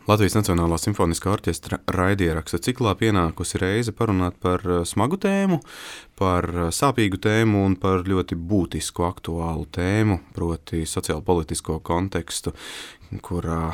Latvijas Nacionālā simfoniskā orķestra raidieraksta ciklā pienākusi reize parunāt par smagu tēmu, par sāpīgu tēmu un par ļoti būtisku aktuālu tēmu, proti sociālpolitisko kontekstu, kurā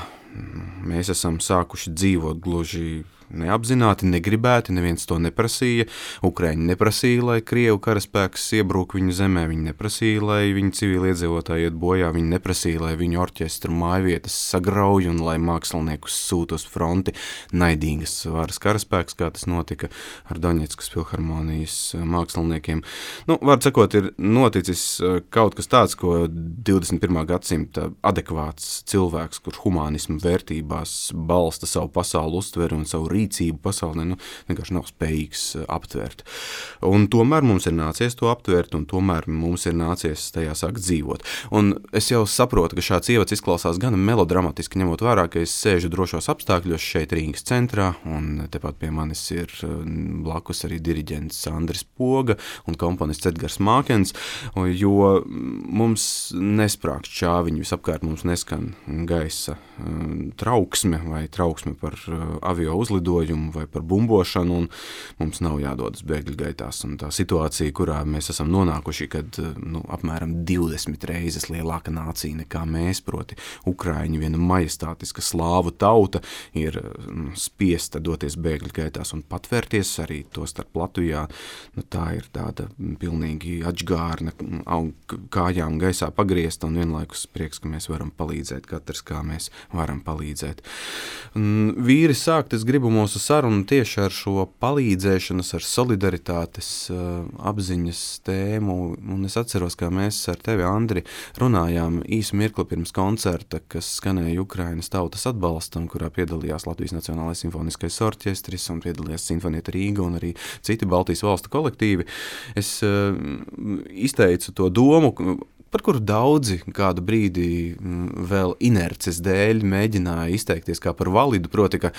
mēs esam sākuši dzīvot gluži neapzināti, negribēti, neviens to neprasīja. Ukraiņi neprasīja, lai Krievu karaspēks iebrūk viņu zemē, viņi neprasīja, lai viņu civiliedzīvotāji iet bojā, viņi neprasīja, lai viņu orķestru mājvietas sagrauj un lai māksliniekus sūt uz fronti naidīgas varas karaspēks, kā tas notika ar Doņetskas filharmonijas māksliniekiem. Var sakot, ir noticis kaut kas tāds, ko 21. gadsimta adekvāts cilvēks, kurš humānismu vērtībās balsta savu pasauli uztveru un savu rīcību pasaulē, vienkārši nav spējīgs aptvert. Un tomēr mums ir nācies to aptvert, un tomēr mums ir nācies tajā sākt dzīvot. Un es jau saprotu, ka šāds ievads izklausās gan melodramatiski, ņemot vērā, ka es sēžu drošos apstākļos šeit Rīgas centrā, un tepat pie manis ir blakus arī diriģents Andris Poga un komponists Edgars Mākens, jo mums nesprākst čāviņu, visapkārt mums neskan gaisa trauksme vai trauksme par avio uzlidojumu vai par bumbošanu, un mums nav jādodas bēgļu gaitās. Un tā situācija, kurā mēs esam nonākuši, kad apmēram 20 reizes lielāka nācija nekā mēs, proti Ukraiņi, viena majestātiska slāvu tauta, ir spiesta doties bēgļu gaitās un patvērties arī to starp Latvijā. Tā ir tāda pilnīgi atžgārna, kājām gaisā pagriezta un vienlaikus prieks, ka mēs varam palīdzēt, katrs kā mēs varam palīdzēt. Vīri sākt, es gribu mūsu sarunu tieši ar šo palīdzēšanas, ar solidaritātes apziņas tēmu, un es atceros, kā mēs ar tevi, Andri, runājām īsu mirkli pirms koncerta, kas skanēja Ukrainas tautas atbalstam, kurā piedalījās Latvijas Nacionālais simfoniskais orķestris un piedalījās Sinfonieta Rīga un arī citi Baltijas valstu kolektīvi. Es izteicu to domu, par kuru daudzi kādu brīdi vēl inerces dēļ mēģināja izteikties kā par validu, proti, ka,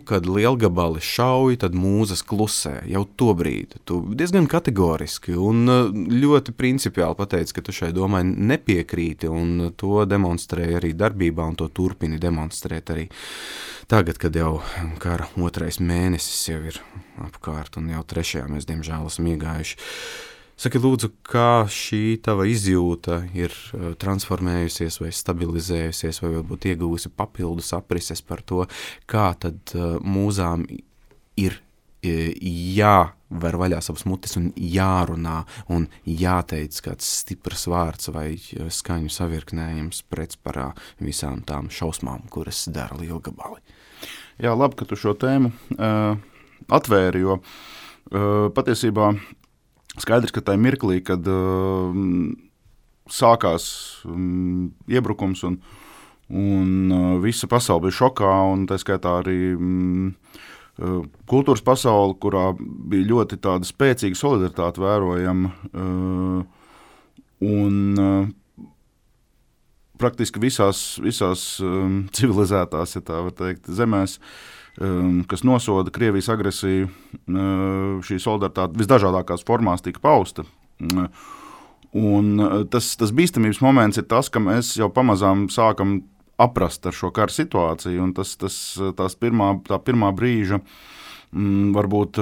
kad lielgabali šauj, tad mūzas klusē. Jau to brīdi tu diezgan kategoriski un ļoti principiāli pateici, ka tu šai domai nepiekrīti, un to demonstrēja arī darbībā, un to turpini demonstrēt arī tagad, kad jau kara otrais mēnesis jau ir apkārt, un jau trešajā mēs, diemžēl, esam iegājuši. Saki, lūdzu, kā šī tava izjūta ir transformējusies vai stabilizējusies, vai varbūt iegūsi papildus aprises par to, kā tad mūzām ir jāver vaļā savas mutes un jārunā un jāteic kāds stiprs vārds vai skaņu savirknējums pretsparā visām tām šausmām, kuras dara lielgabali. Jā, labi, ka tu šo tēmu atvēri, jo patiesībā skaidrs, ka tajā mirklī, kad sākās iebrukums un visa pasaule bija šokā, un tā skaitā arī kultūras pasaule, kurā bija ļoti tāda spēcīga solidaritāte vērojama, un praktiski visās civilizētās, ja tā var teikt, zemēs, kas nosoda Krievijas agresiju, šī solidaritāte visdažādākās formās tika pausta. Un tas bīstamības moments ir tas, ka mēs jau pamazām sākam aprast ar šo kara situāciju, un tā pirmā brīža, varbūt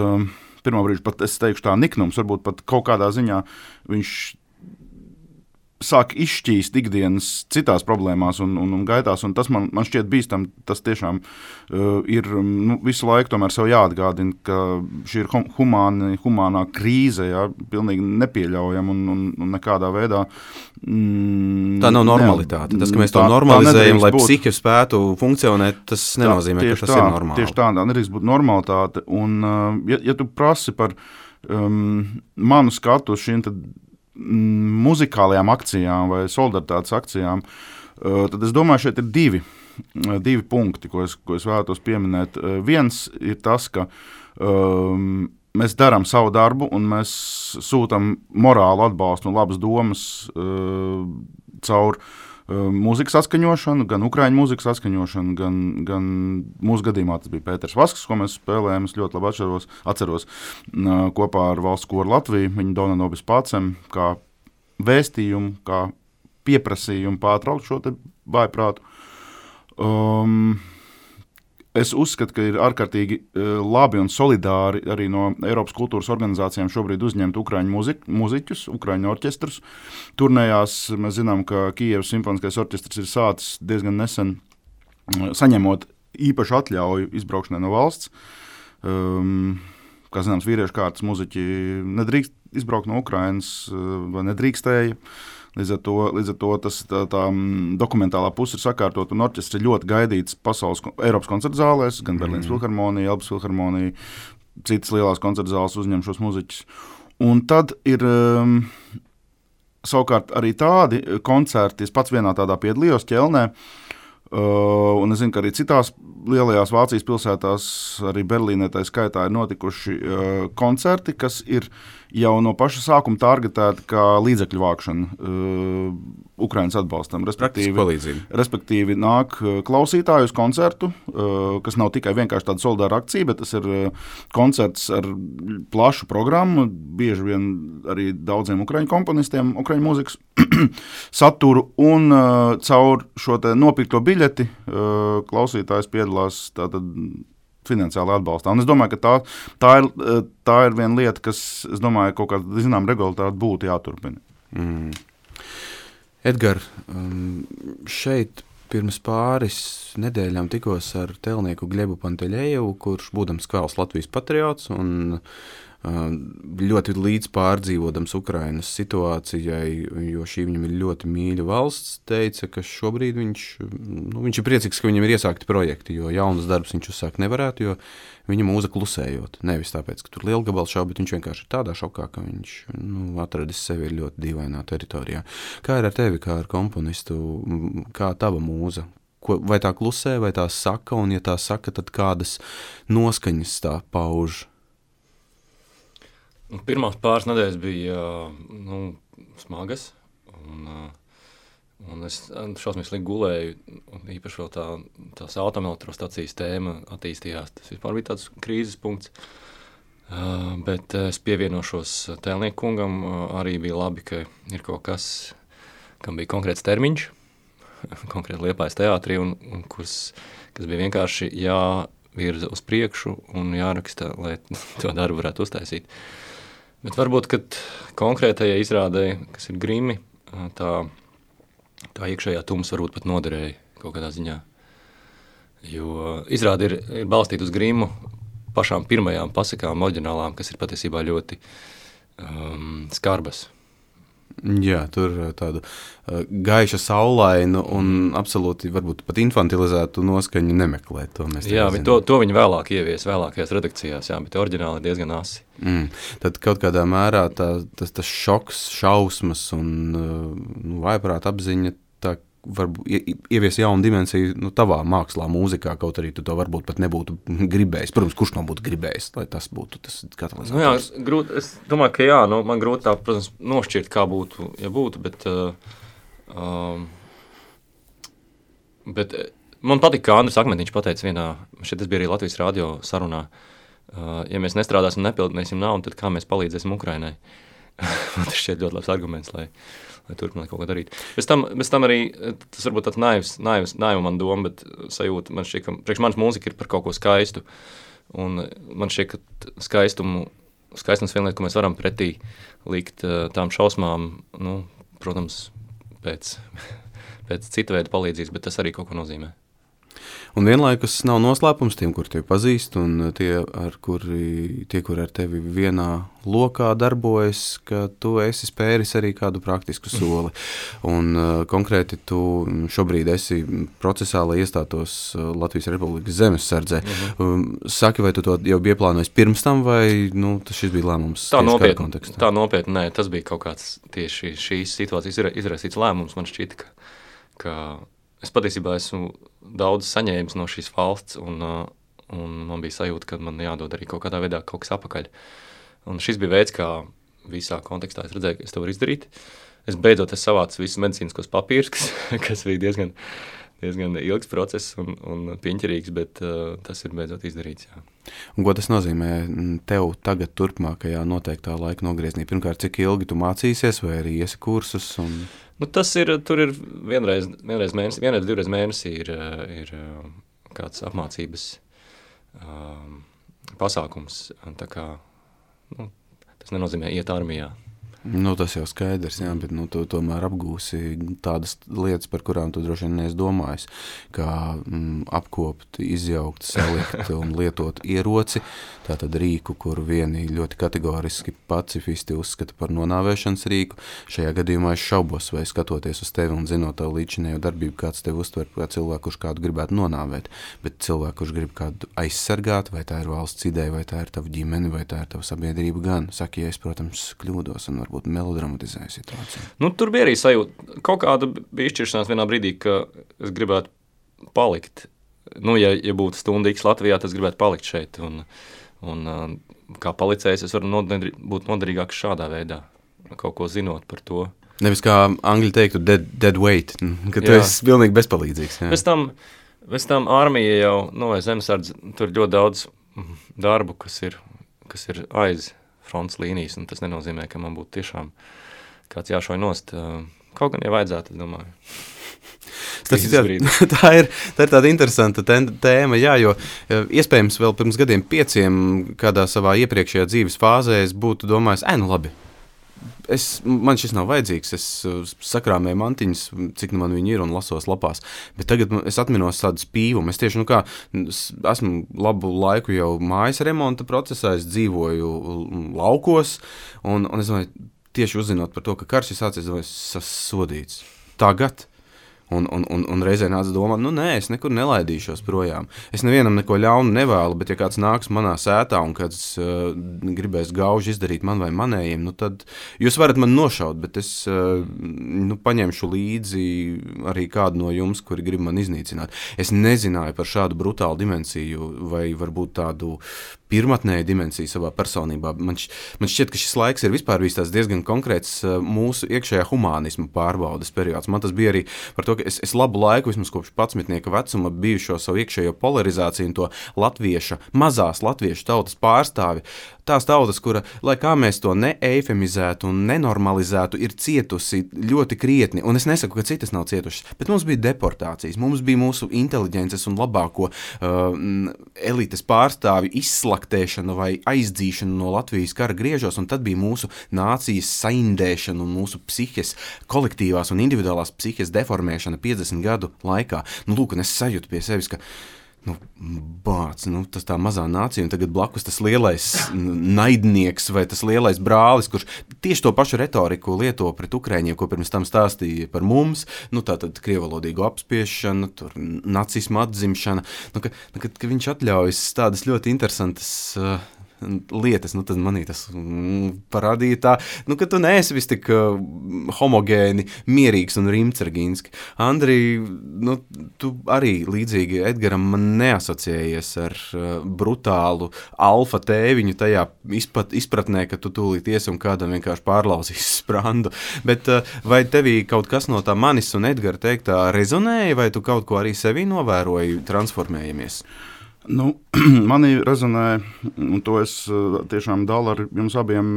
pirmā brīža pat, es teikšu tā, niknums, varbūt pat kaut kādā ziņā viņš sāk izšķīst ikdienas citās problēmās un gaitās, un tas man šķiet bīstam, tas tiešām ir visu laiku tomēr sev jāatgādina, ka šī ir humānā krīze, jā, pilnīgi nepieļaujama un nekādā veidā. Tā nav normalitāte. Tas, ka mēs to normalizējam, lai psihi spētu funkcionēt, tas nenozīmē, ka tas ir normāli. Tieši tā nedrīkst būt normalitāte, un ja tu prasi par manu skatu uz šīm tad muzikālajām akcijām vai solidaritātes akcijām, tad es domāju, šeit ir divi punkti, ko es vēlētos pieminēt. Viens ir tas, ka mēs darām savu darbu un mēs sūtam morālu atbalstu un labas domas caur mūzikas atskaņošanu, gan ukraiņu mūzikas atskaņošanu, gan mūsu gadījumā tas bija Pēters Vasks, ko mēs spēlējām, es ļoti labi atceros kopā ar valsts koru Latviju, viņa Dona Nobis Pācem, kā vēstījumu, kā pieprasījumu pārtraukt šo te vājprātu. Es uzskatu, ka ir ārkārtīgi labi un solidāri arī no Eiropas kultūras organizācijām šobrīd uzņemt ukraiņu muziķus, ukraiņu orķestrus. Turnējās mēs zinām, ka Kijevas simfoniskais orķestrs ir sācis diezgan nesen saņemot īpašu atļauju izbraukšanai no valsts. Kā zināms, vīriešu kārtas muziķi nedrīkst izbraukt no Ukrainas vai nedrīkstēja. Līdz ar to tā dokumentālā puse ir sakārtot, un orķestri ļoti gaidīts Eiropas koncertu zālēs, gan Berlīnas filharmonija, Elbas filharmonija, citas lielās koncertu zāles uzņem šos muziķus. Un tad ir savukārt arī tādi koncerti, es pats vienā tādā piedalījos Ķelnē, un es zinu, ka arī citās lielajās Vācijas pilsētās, arī Berlīnē tā skaitā ir notikuši koncerti, kas ir jau no paša sākuma targetēti kā līdzekļu vākšana Ukrainas atbalstam. Respektīvi nāk klausītāju uz koncertu, kas nav tikai vienkārši tāda solidāra akcija, bet tas ir koncerts ar plašu programmu, bieži vien arī daudziem ukraiņu komponistiem, ukraiņu mūzikas saturu, un caur šo te nopirkto biļeti klausītājs piedalās tātad finansiāli atbalstā. Un es domāju, ka tā ir viena lieta, kas, es domāju, kaut kāda, zinām, regulāri būtu jāturpina. Edgar, šeit pirms pāris nedēļām tikos ar tēlnieku Gļebu Panteļejevu, kurš būdams kvēls Latvijas patriots un ļoti līdz pārdzīvodams Ukrainas situācijai, jo šī viņam ir ļoti mīļa valsts, teica, ka šobrīd viņš ir priecīgs, ka viņam ir iesākti projekti, jo jaunas darbs viņš uzsākt nevarētu, jo viņa mūza klusējot. Nevis tāpēc, ka tur lielgabals šau, bet viņš vienkārši ir tādā šokā, ka viņš atradis sevi ļoti dīvainā teritorijā. Kā ir ar tevi, kā ar komponistu, kā tava mūza? Vai tā klusē, vai tā saka, un ja tā saka, tad kādas noskaņas tā pauž? Pirmās pāris nedēļas bija smagas, un es šausmīgi gulēju, un īpaši vēl tās atomelektrostacijas tēma attīstījās. Tas vispār bija tāds krīzes punkts, bet es pievienošos tēlnieku kungam, arī bija labi, ka ir kaut kas, kam bija konkrēts termiņš, konkrēti Liepājas teātrī, un kas bija vienkārši jāvirza uz priekšu un jāraksta, lai to darbu varētu uztaisīt. Bet varbūt, kad konkrētajai izrādē, kas ir Grimi, tā iekšējā tums varbūt pat noderēja kaut kādā ziņā. Jo izrāde ir balstīta uz Grimu pašām pirmajām pasakām oriģinālām, kas ir patiesībā ļoti skarbas. Jā, tur tādu gaiša saulainu un absolūti varbūt pat infantilizētu noskaņu nemeklēt. To viņi vēlāk ievies vēlākajās redakcijās, jā, bet oriģināli ir diezgan asi. Tad kaut kādā mērā tas šoks, šausmas un vājprāta apziņa tā varbūt ievies jaunu dimensiju tavā mākslā, mūzikā, kaut arī tu to varbūt pat nebūtu gribējis. Protams, kurš nav būtu gribējis, lai tas būtu tas katalizators? Es domāju, ka man grūti tā, protams, nošķirt, kā būtu, ja būtu, bet man patika, kā Andris Akmentiņš pateica vienā, šeit tas bija arī Latvijas radio sarunā, ja mēs nestrādāsim un nepildīsim naudu, tad kā mēs palīdzēsim Ukrainai? Man tas šķiet ļoti labs arguments, lai turpināt kaut ko darīt. Bez tam arī, tas varbūt tāds naiva man doma, bet sajūta, man šķiet, ka priekš manas mūzika ir par kaut ko skaistu, un man šķiet, ka skaistums viena lieta, ko mēs varam pretī likt tām šausmām, protams, pēc cita veida palīdzības, bet tas arī kaut ko nozīmē. Un vienlaikus nav noslēpums tiem, kur tevi pazīst, un tie, kuri ar tevi vienā lokā darbojas, ka tu esi spēris arī kādu praktisku soli. Un konkrēti tu šobrīd esi procesā, lai iestātos Latvijas Republikas zemessardzē. Saki, vai tu to jau bija plānojis pirms tam, vai šis bija lēmums tieši kādā kontekstā? Tā nopietni, nē, tas bija kaut kāds tieši šīs situācijas izraisīts lēmums. Man šķita, ka es patiesībā esmu daudz saņēmis no šīs valsts, un man bija sajūta, ka man jādod arī kaut kādā veidā kaut kas apakaļ. Un šis bija veids, kā visā kontekstā es redzēju, ka es to varu izdarīt. Es beidzot savācu visus medicīniskos papīrus, kas bija diezgan diezgan ilgs process un piņķerīgs, bet tas ir beidzot izdarīts, jā. Un ko tas nozīmē tev tagad turpmākajā noteiktā laika nogriezienī? Pirmkārt, cik ilgi tu mācīsies vai arī iesi kursus? Nu, tur ir vienreiz mēnesī, divreiz mēnesī ir kāds apmācības pasākums. Tā kā, tas nenozīmē iet armijā. Nu, tas jau skaidrs, jā, bet tu tomēr apgūsi tādas lietas, par kurām tu droši vien neesi domājis, kā apkopt, izjaukt, salikt un lietot ieroci, tātad rīku, kuru vieni ļoti kategoriski pacifisti uzskata par nonāvēšanas rīku. Šajā gadījumā es šaubos, vai skatoties uz tevi un zinot tavu līdzinējo darbību, kāds tevi uztver kā cilvēku, kurš kādu gribētu nonāvēt, bet cilvēku, kurš grib kādu aizsargāt, vai tā ir valsts ideja, vai tā ir tava ģimene, vai tā ir tava sabiedrība gan. Saki, ja es, protams, kļūdos un varbūt melodramatizēju situāciju. Nu, tur bija arī sajūta. Kaut kāda bija izšķiršanās vienā brīdī, ka es gribētu palikt. Nu, ja būtu stunda X Latvijā, tad es gribētu palikt šeit. Un kā palicējs, es varu būt noderīgāks šādā veidā, kaut ko zinot par to. Nevis kā angļi teiktu dead weight, ka tu esi pilnīgi bezpalīdzīgs. Jā. Bez tam armija jau, vai zemesardze, tur ļoti daudz darbu, kas ir aiz fronts līnijas, un tas nenozīmē, ka man būtu tiešām kāds jāšauj nost. Kaut gan, ja vajadzētu, es domāju. Tā ir tāda interesanta tēma, jā, jo iespējams vēl pirms gadiem 5 kādā savā iepriekšējā dzīves fāzē es būtu domājis, nu labi, man šis nav vajadzīgs, es sakrāmēju mantiņas, cik man viņi ir un lasos lapās, bet tagad es atminos tādu spīvumu, es tieši, esmu labu laiku jau mājas remonta procesā, es dzīvoju laukos, un es domāju, tieši uzzinot par to, ka karš ir sācies, es sasodīts. Tagad. Un reizē nāca domāt, nē, es nekur nelaidīšos projām. Es nevienam neko ļaunu nevēlu, bet ja kāds nāks manā sētā un kāds gribēs gauži izdarīt man vai manējiem, tad jūs varat man nošaut, bet es paņemšu līdzi arī kādu no jums, kuri grib man iznīcināt. Es nezināju par šādu brutālu dimensiju vai varbūt tādu pirmatnēju dimensiju savā personībā. Man šķiet, ka šis laiks ir vispār bijis tās diezgan konkrēts mūsu iekšējā humānisma pārbaudes periods. Man tas bija arī par to, ka es labu laiku, vismaz kopš 11. vecuma, biju šo savu iekšējo polarizāciju un to mazās latviešu tautas pārstāvi. Tās tautas, kura, lai kā mēs to neeifemizētu un nenormalizētu, ir cietusi ļoti krietni. Un es nesaku, ka citas nav cietušas, bet mums bija deportācijas, mums bija mūsu inteliģences un labāko elites pārstāvi izslaktēšana vai aizdzīšana no Latvijas kara griežos, un tad bija mūsu nācijas saindēšana un mūsu psihes, kolektīvās un individuālās psihes deformēšana 50 gadu laikā. Lūk, un es sajūtu pie sevis, ka tas tā mazā nācija, un tagad blakus tas lielais naidnieks vai tas lielais brālis, kurš tieši to pašu retoriku lieto pret Ukraiņiem, ko pirms tam stāstīja par mums, tātad krievalodīgu apspiešanu, tur nacismu atzimšana, ka viņš atļaujas tādas ļoti interesantas lietas, tad manī tas parādīja tā, ka tu neesi vis tik homogēni, mierīgs un rimcergīnski. Andri, tu arī līdzīgi Edgaram man neasociējies ar brutālu alfa tēviņu tajā izpratnē, ka tu tūlīt iesi un kādam vienkārši pārlauzīs sprandu. Bet vai tevī kaut kas no tā manis un Edgara teiktā rezonēja, vai tu kaut ko arī sevī novēroji transformējamies? Manī rezonē, un to es tiešām dalu ar jums abiem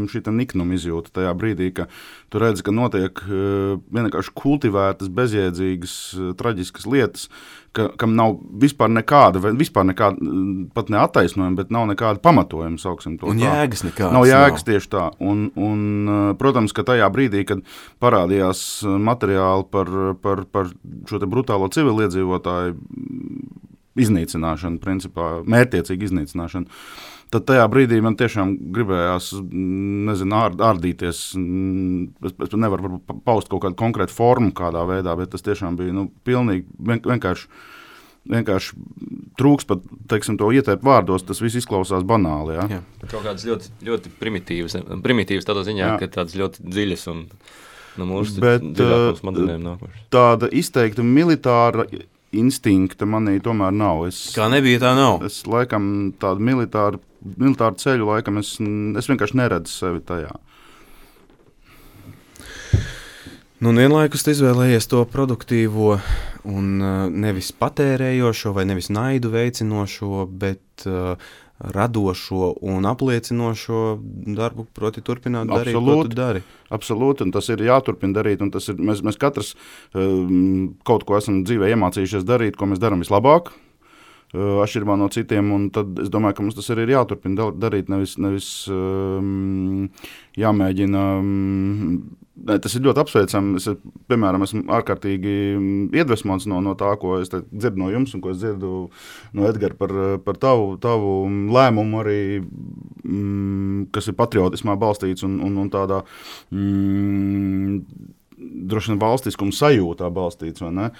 šī niknuma izjūta tajā brīdī, ka tu redzi, ka notiek vienkārši kultivētas, bezjēdzīgas, traģiskas lietas, kam nav vispār nekāda, pat ne attaisnojuma, bet nav nekāda pamatojuma, sauksim to. Un jēgas nekādas. Nav jēgas tieši tā. Un protams, ka tajā brīdī, kad parādījās materiāli par šo te brutālo civiliedzīvotāju iznīcināšanu, principā, mērķtiecīgu iznīcināšanu, tad tajā brīdī man tiešām gribējās, ārdīties. Es nevaru paust kaut kādu konkrētu formu kādā veidā, bet tas tiešām bija, pilnīgi vienkārši trūks pat, teiksim, to ieteikt vārdos, tas viss izklausās banāli, jā. Kaut kādas ļoti, ļoti primitīvas tādā ziņā, ka tādas ļoti dziļas un mūsu dziļāk smadzenēm nākošas. Tāda izteikta militāra instinkta manī tomēr nav. Kā nebija, tā nav. Es laikam tādu militāru ceļu laikam es vienkārši neredzu sevi tajā. Vienlaikus tu izvēlējies to produktīvo un nevis patērējošo vai nevis naidu veicinošo, bet radošo un apliecinošo darbu, proti turpināt darīt, ko tu dari. Absolūti, un tas ir jāturpina darīt, un tas ir, mēs katrs kaut ko esam dzīvē iemācījušies darīt, ko mēs darām vislabāk, atšķirībā no citiem, un tad es domāju, ka mums tas arī ir jāturpina darīt, nevis jāmēģina. Tas ir ļoti apsveicami. Es, piemēram, esmu ārkārtīgi iedvesmots no tā, ko es dzirdu no jums un ko es dzirdu no Edgara par tavu lēmumu arī, kas ir patriotismā balstīts un tādā droši vien valstiskuma sajūtā balstīts, vai ne?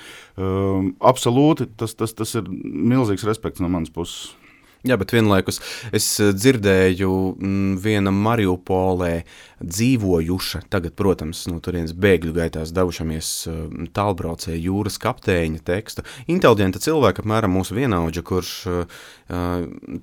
Absolūti, tas ir milzīgs respekts no manas puses. Jā, bet vienlaikus es dzirdēju viena Mariupolē dzīvojuša, tagad, protams, no turienes bēgļu gaitās devušamies tālbraucēja jūras kapteiņa tekstu. Inteliģenta cilvēka, apmēram mūsu vienaudža, kurš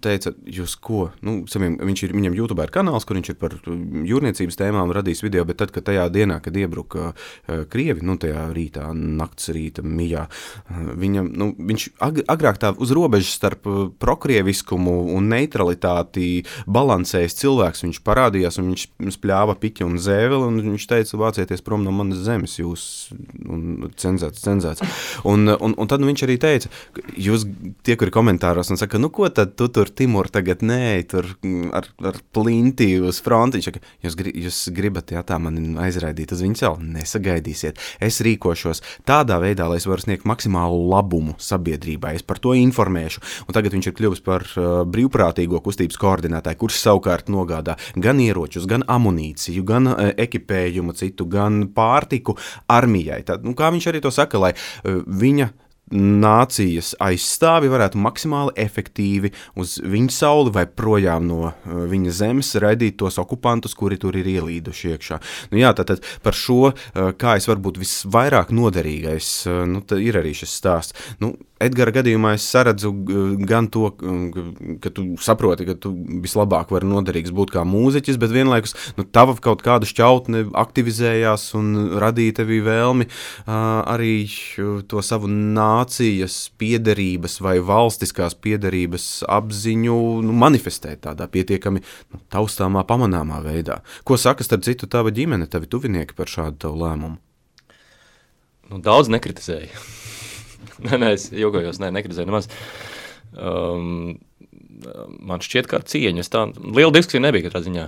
teica, jūs ko? Viņam YouTube ir kanāls, kur viņš ir par jūrniecības tēmām radījis video, bet tad, kad tajā dienā, kad iebruka Krievi, tajā rītā, nakts rīta mijā, viņš agrāk tā uz robežas starp prokrievisku un neutralitāti balansējis cilvēks, viņš parādījās un viņš spļāva piķi un zēveli un viņš teica, vācieties prom no manas zemes, jūs cenzēts. Un tad viņš arī teica, jūs tie, kuri komentāros un saka, ko tad tu tur, Timur, tagad nē, tur ar plinti uz fronti, viņš saka, jūs gribat, tā mani aizraidīt uz viņu celu, nesagaidīsiet, es rīkošos tādā veidā, lai es varu sniegt maksimālu labumu sabiedrībai, es par to informēšu, un tagad viņš ir kļuvis par brīvprātīgo kustības koordinētāju, kurš savukārt nogādā gan ieročus, gan amunīciju, gan ekipējumu citu, gan pārtiku armijai. Tad, kā viņš arī to saka, lai viņa nācijas aizstāvi varētu maksimāli efektīvi uz viņa sauli vai projām no viņa zemes raidīt tos okupantus, kuri tur ir ielīduši iekšā. Tātad par šo, kā es varbūt visvairāk noderīgais, ir arī šis stāsts. Edgara gadījumā es saredzu gan to, ka tu saproti, ka tu vislabāk vari noderīgs būt kā mūziķis, bet vienlaikus tava kaut kāda šķautne aktivizējās un radīja tevī vēlmi arī to savu nācijas piederības vai valstiskās piederības apziņu manifestēt tādā pietiekami taustāmā, pamanāmā veidā. Ko saka starp citu tava ģimene, tavi tuvinieki par šādu tavu lēmumu? Daudz nekritizēja. Nē, es jokojos, nekritizēju nemaz. Man šķiet kā ar cieņu. Liela diskusija nebija katrā ziņā.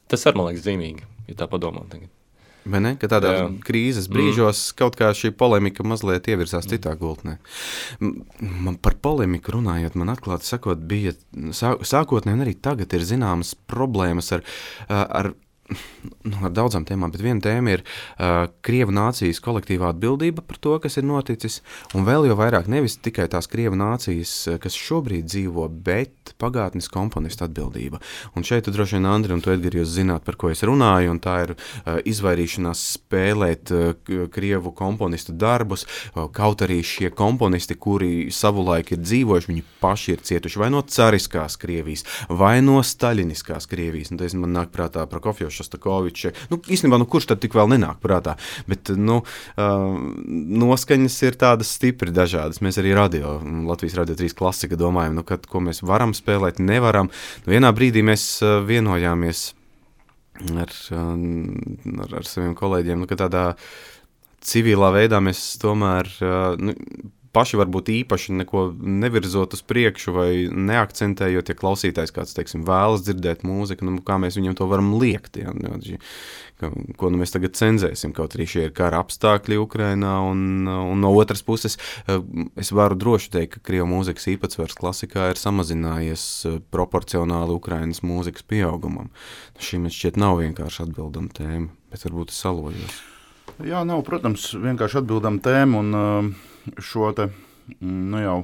Tas arī, man liekas, zīmīgi, ja tā padomā tagad. Vai ne? Ka tādā krīzes brīžos kaut kā šī polemika mazliet ievirzās citā gultnē. Man par polemiku runājot, man atklāti sakot, bija sākotnēji un arī tagad ir zināmas problēmas ar daudzām tēmām, bet viena tēma ir Krievu nācijas kolektīvā atbildība par to, kas ir noticis, un vēl jau vairāk nevis tikai tās Krievu nācijas, kas šobrīd dzīvo, bet pagātnes komponistu atbildība. Un šeit droši vien, Andri, un tu, Edgari, jūs zināt, par ko es runāju, un tā ir izvairīšanās spēlēt Krievu komponistu darbus, kaut arī šie komponisti, kuri savulaik ir dzīvojuši, viņi paši ir cietuši vai no cariskās Krievijas, vai no staļiniskās Krievijas. Un tas man nāk prātā Prokofjevs, Šostakovičs. Īstenībā, kurš tad tik vēl nenāk prātā, bet, noskaņas ir tādas stipri dažādas. Mēs arī Latvijas Radio 3 klasika domājam, ko mēs varam spēlēt, nevaram. Vienā brīdī mēs vienojāmies ar saviem kolēģiem, ka tādā civilā veidā mēs tomēr, paši varbūt īpaši neko nevirzot uz priekšu vai neakcentējot, ja klausītājs kāds, teiksim, vēlas dzirdēt mūziku, kā mēs viņam to varam liekt, ko mēs tagad cenzēsim, kaut arī šie ir kara apstākļi Ukrainā, un no otras puses es varu droši teikt, ka Krievu mūzikas īpatsvars klasikā ir samazinājies proporcionāli Ukrainas mūzikas pieaugumam. Šī man šķiet nav vienkārši atbildama tēma, bet varbūt es salojos. Jā, nav, protams, vienkārši atbildama tēma, un šo te, jau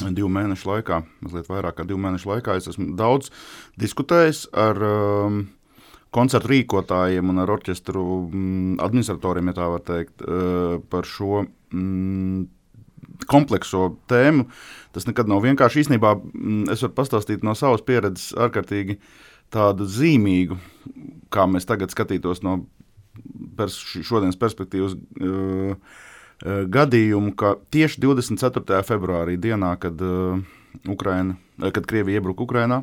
2 mēnešu laikā, mazliet vairāk kā 2 mēnešu laikā, es esmu daudz diskutējis ar koncertu rīkotājiem un ar orķestru administratoriem, ja tā var teikt, par šo komplekso tēmu. Tas nekad nav vienkārši. Īstenībā es varu pastāstīt no savas pieredzes ārkārtīgi tādu zīmīgu, kā mēs tagad skatītos no šodienas perspektīvas, gadījumu, ka tieši 24. februārī dienā, kad Krievija iebruka Ukrainā,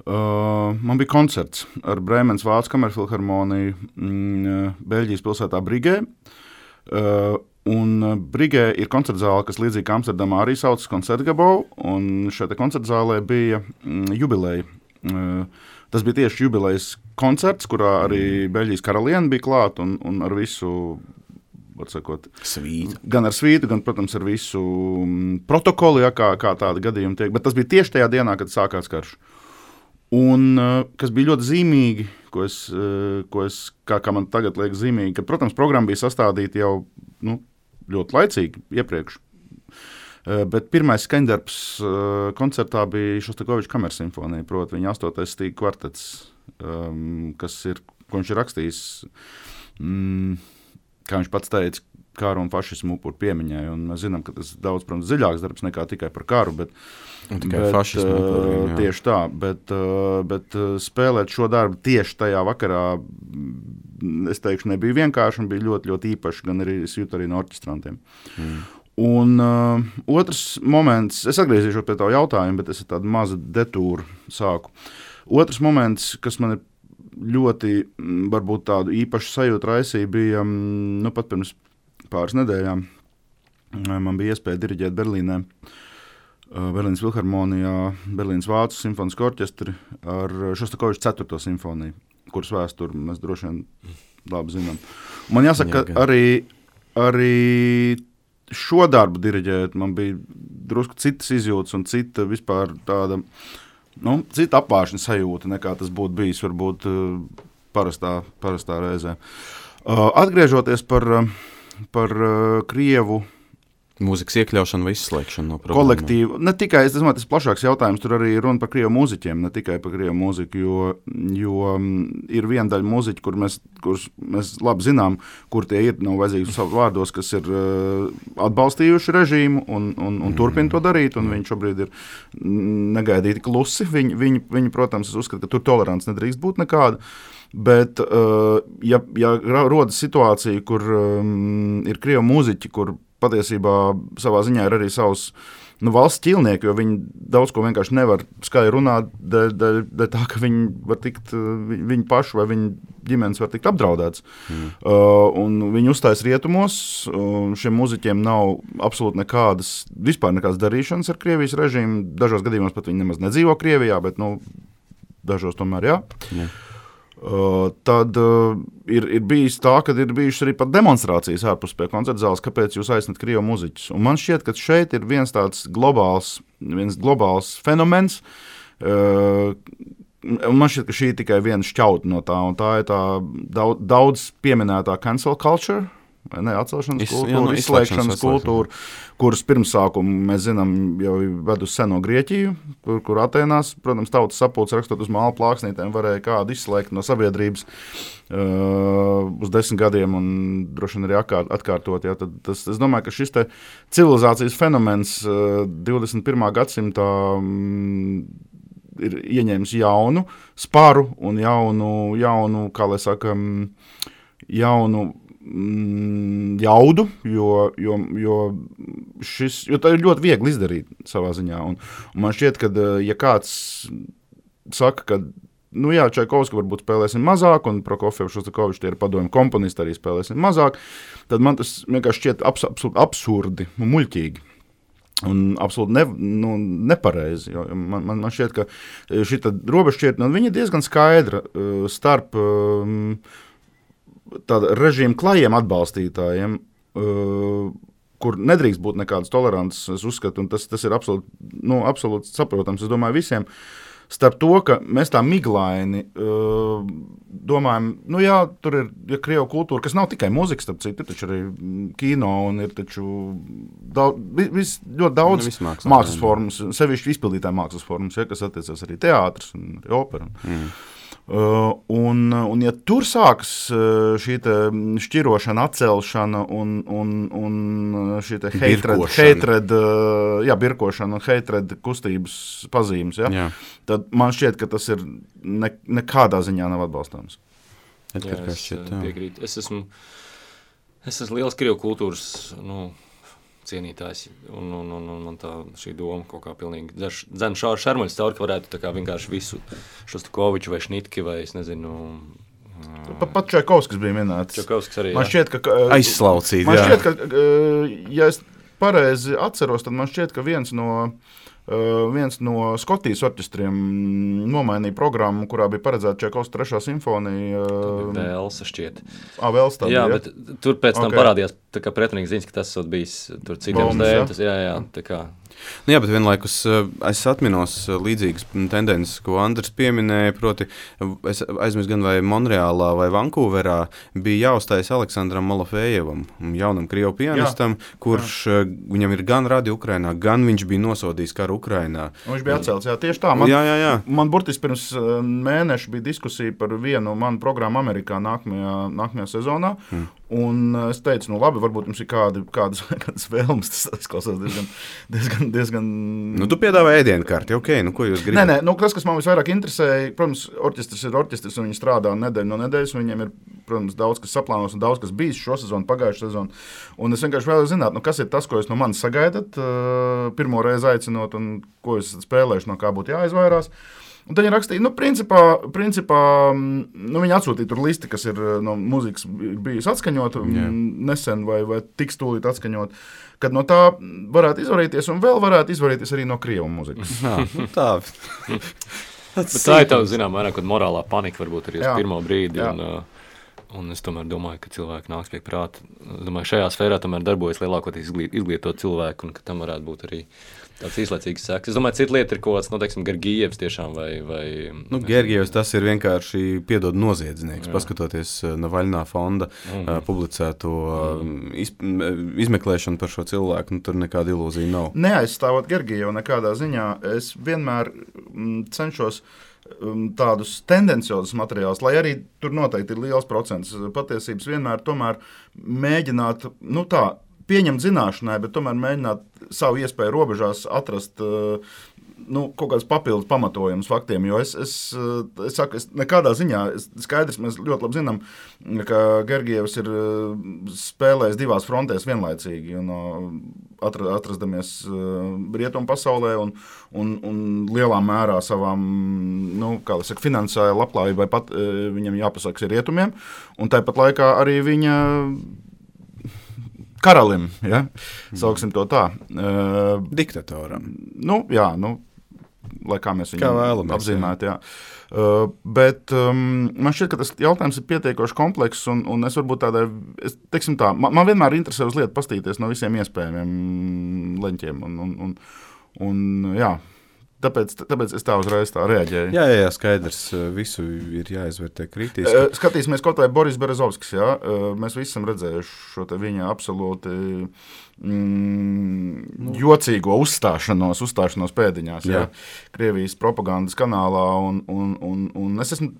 man bija koncerts ar Brēmenes Vācu kamerfilharmoniju Beļģijas pilsētā Brigē. Un Brigē ir koncertzāle, kas līdzīgi kā Amsterdamā arī saucas Concertgebouw, un šeit koncertzālē bija jubileja. Tas bija tieši jubilejas koncerts, kurā arī Beļģijas karaliene bija klāt un ar visu, var sakot, svītu. Gan ar svītu, gan, protams, ar visu protokolu, ja, kā tāda gadījuma tiek. Bet tas bija tieši tajā dienā, kad sākās karš. Un kas bija ļoti zīmīgi, ko es kā man tagad liekas zīmīgi, ka, protams, programma bija sastādīta jau ļoti laicīgi iepriekš. Bet pirmais skaņdarbs koncertā bija Šostakoviča kamersimfonija, proti viņa 8. stīga kvartets, ko viņš ir rakstījis, kā viņš pats teica, kāru un fašismu upuru piemiņai. Un mēs zinām, ka tas daudz, protams, dziļāks darbs nekā tikai par karu, bet fašismu upuriem, tieši tā. Bet spēlēt šo darbu tieši tajā vakarā, es teikšu, nebija vienkārši un bija ļoti, ļoti īpaši, gan arī es jūtu arī no orķestrantiem. Un otrs moments, es atgriezīšos pie tā jautājuma, bet es tādu mazu detūru sāku. Otrs moments, kas man ir ļoti, varbūt tādu īpašu sajūtu raisīja, bija, pat pirms pāris nedēļām man bija iespēja diriģēt Berlīnē, Berlīnas filharmonijā, Berlīnas Vācu simfonisku orķestri ar Šostakoviča 4. simfoniju, kuras vēsturi mēs droši vien labi zinām. Man jāsaka, ka arī šo darbu diriģēt man bija drusku citas izjūtas un cita vispār tāda, cita apvāršana sajūta, nekā tas būtu bijis varbūt parastā reizē. Atgriežoties par Krievu mūzikas iekļaušanu vai izslēgšanu no programmām. Kolektīvu. Ne tikai, es domāju, tas plašāks jautājums, tur arī runa par Krievu mūziķiem, ne tikai par Krievu mūziku, jo ir viena daļa mūziķi, kurus mēs labi zinām, kur tie ir, nav vajadzīgi savu vārdos, kas ir atbalstījuši režīmu un turpina to darīt, un viņi šobrīd ir negaidīti klusi. Viņi, protams, es uzskatu, ka tur tolerants nedrīkst būt nekāda. Bet, ja rodas situācija, kur ir Krievu mūziķi, kur patiesībā savā ziņā ir arī savs valsts ķilnieki, jo viņi daudz ko vienkārši nevar skaļi runāt, dēļ tā, ka viņi var tikt, viņi paši vai viņi ģimenes var tikt apdraudēts. Un viņi uzstājas rietumos, šiem mūziķiem nav absolūti vispār nekādas darīšanas ar Krievijas režīmu, dažos gadījumos pat viņi nemaz nedzīvo Krievijā, bet dažos tomēr jā. Tad ir bijis tā, ka ir bijušas arī pat demonstrācijas ārpus pie koncerta zāles, kāpēc jūs aicināt Krievu mūziķus. Un man šķiet, ka šeit ir viens tāds globāls fenomens, un man šķiet, ka šī ir tikai viena šķauta no tā, un tā ir tā daudz pieminētā cancel culture, atcelšanas kultūra, izslēgšanas kultūra, kuras pirmsākumu mēs zinām jau ved uz seno Grieķiju, kur Atēnās, protams, tautas sapulces rakstot uz māla plāksnītēm varēja kādu izslēgt no sabiedrības uz 10 gadiem un droši vien arī atkārtot. Ja, tad es domāju, ka šis te civilizācijas fenomens 21. gadsimtā ir ieņēmis jaunu sparu un jaunu, kā lai saka, jaunu jaudu, jo tā ir ļoti viegli izdarīt savā ziņā. Un man šķiet, ka ja kāds saka, ka Čaikovski varbūt spēlēsim mazāk, un Prokofjevu, Šostakoviču, tie ir padomju komponisti, arī spēlēsim mazāk, tad man tas vienkārši šķiet absolūti absurdi un muļķīgi. Un absolūti nepareizi. Man šķiet, ka šī robežšķirtne, viņa ir diezgan skaidra starp tāda režīma klajiem atbalstītājiem, kur nedrīkst būt nekādas tolerances, es uzskatu, un tas ir absolūti saprotams, es domāju, visiem, starp to, ka mēs tā miglaini domājam, tur ir Krievu kultūra, kas nav tikai mūzika, starp citu, ir taču arī kino, un ir taču ļoti daudz mākslas formas, sevišķi izpildītāju mākslas formas, kas attiecas arī teātris un arī opera. Un ja tur sākas šī šķirošana, atcelšana un šī birkošana un hatred kustības pazīmes, tad man šķiet, ka tas ir nekādā ziņā nav atbalstāms. Es piekrītu. Es esmu Es esmu liels Krievu kultūras cienītājs, un tā šī doma kaut kā pilnīgi dzen šarmuļs caur, ka varētu tā kā vienkārši visu Šostakoviču vai Šnitki vai es nezinu. Pat Čaikovskis bija minēts. Čaikovskis arī, man šķiet, ka aizslaucīt, man šķiet, ka, ja es pareizi atceros, tad man šķiet, ka viens no Skotijas orķestriem nomainīja programmu, kurā bija paredzēta Čaikovska 3. simfonija. Velsa šķiet. Velsa tā bija, bet tur pēc tam parādījās tā kā pretrunīgs ziņas, ka tas esot bijis tur citiem stēm. Jā, tā kā. Jā, bet vienlaikus es atminos līdzīgas tendences, ko Andris pieminēja, proti es aizmirsu gan vai Monreālā vai Vankūverā bija jāuzstājas Aleksandram Malofejevam, jaunam Krievu pianistam, kurš viņam ir gan radi Ukrainā, gan viņš bija nosodījis karu Ukrainā. Viņš bija atcelts, jā, tieši tā. Man burtiski pirms mēneša bija diskusija par vienu manu programmu Amerikā nākamajā sezonā, un es teicu, labi, varbūt jums ir kādas vēlmes, tas izklausās diezgan... Tu piedāvā ēdienkarti, ko jūs gribat? Nē, kas man visvairāk interesēja, protams, orķestris ir orķestris, un viņi strādā nedēļu no nedēļas, un viņiem ir, protams, daudz kas saplānos un daudz kas bijis šo sezonu, pagājušo sezonu. Un es vienkārši vēlos zināt, kas ir tas, ko jūs no manis sagaidat, pirmo reizi aicinot, un ko jūs spēlējuši, no kā būtu jāizvairās. Un tad viņi rakstīja, principā viņi atsūtīja tur listi, kas ir no muzikas bijusi atskaņota nesen vai tiks tūlīt atskaņot, kad no tā varētu izvarīties un vēl varētu izvarīties arī no Krievu muzikas. Tā. Bet tā ir tā, zinām, vairāk, kad morālā panika varbūt arī uz pirmo brīdi. Un es tomēr domāju, ka cilvēki nāks pie prāta. Es domāju, šajā sfērā tomēr darbojas lielākoties izglītot cilvēku, un ka tam varētu būt arī tāds īslaicīgs seks. Es domāju, cita lieta ir kaut kāds, Gergijevs tiešām vai... Gergijevs tas ir vienkārši piedod noziedznieks, paskatoties Navaļnā fonda publicēto izmeklēšanu par šo cilvēku, tur nekāda ilūzija nav. Neaizstāvot Gergijevu nekādā ziņā, es vienmēr cenšos tādus tendenciozus materiālus, lai arī tur noteikti ir liels procents patiesības vienmēr tomēr mēģināt, pieņemt zināšanai, bet tomēr mēģināt savu iespēju robežās atrast kaut kādas papildus pamatojumus faktiem, jo es saku, nekādā ziņā, skaidrs, mēs ļoti labi zinām, ka Gergijevs ir spēlējis divās frontēs vienlaicīgi, atrastamies rietumu pasaulē un lielā mērā savām, finansiālajā labklājībai pat viņam jāpasakas ir rietumiem, un tāpat laikā arī viņa karalim, sauksim to tā. Diktatoram. Lai kā mēs viņu apzīmētu, bet man šķiet, ka tas jautājums ir pietiekoši komplekss, un es varbūt man vienmēr interesē uz lietu pastīties no visiem iespējamiem leņķiem, Tāpēc es tā uzreiz tā reaģēju. Jā, skaidrs. Visu ir jāizvērtē kritiski. Skatīsimies kaut vai Boris Berezovskis. Mēs visi esam redzējuši šo viņa absolūti jocīgo uzstāšanos pēdiņās. Krievijas propagandas kanālā. Un es esmu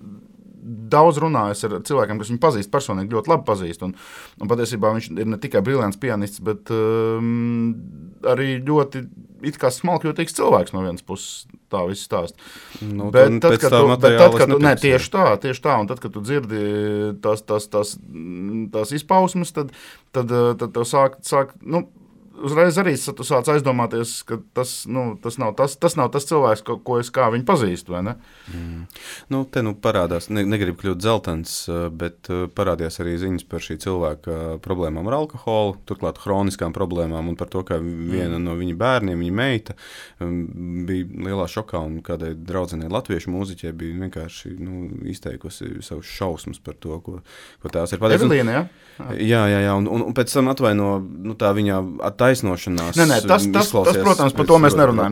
daudz runājis ar cilvēkiem, kas viņu pazīst personīgi, ļoti labi pazīst. Un patiesībā viņš ir ne tikai brillants pianists, bet arī ļoti it kā smalkjūtīgs cilvēks no vienas puses, tā viss stāst. Bet tad, kad tu tieši tā, un tad, kad tu dzirdi tās izpausmes, tad tev sāk uzreiz arī tu sāc aizdomāties, ka tas nav tas cilvēks, ko es kā viņu pazīstu, vai ne? Te parādās, negribu kļūt dzeltens, bet parādījās arī ziņas par šī cilvēka problēmām ar alkoholu, turklāt hroniskām problēmām un par to, ka viena no viņa bērniem, viņa meita, bija lielā šokā un kādai draudzenei latviešu mūziķei bija vienkārši izteikusi savus šausmas par to, ko tās ir pateicis. Evelīna, jā, un pēc tam atvaino tā viņa taisnošanās. Tas, protams, par to mēs nerunājam.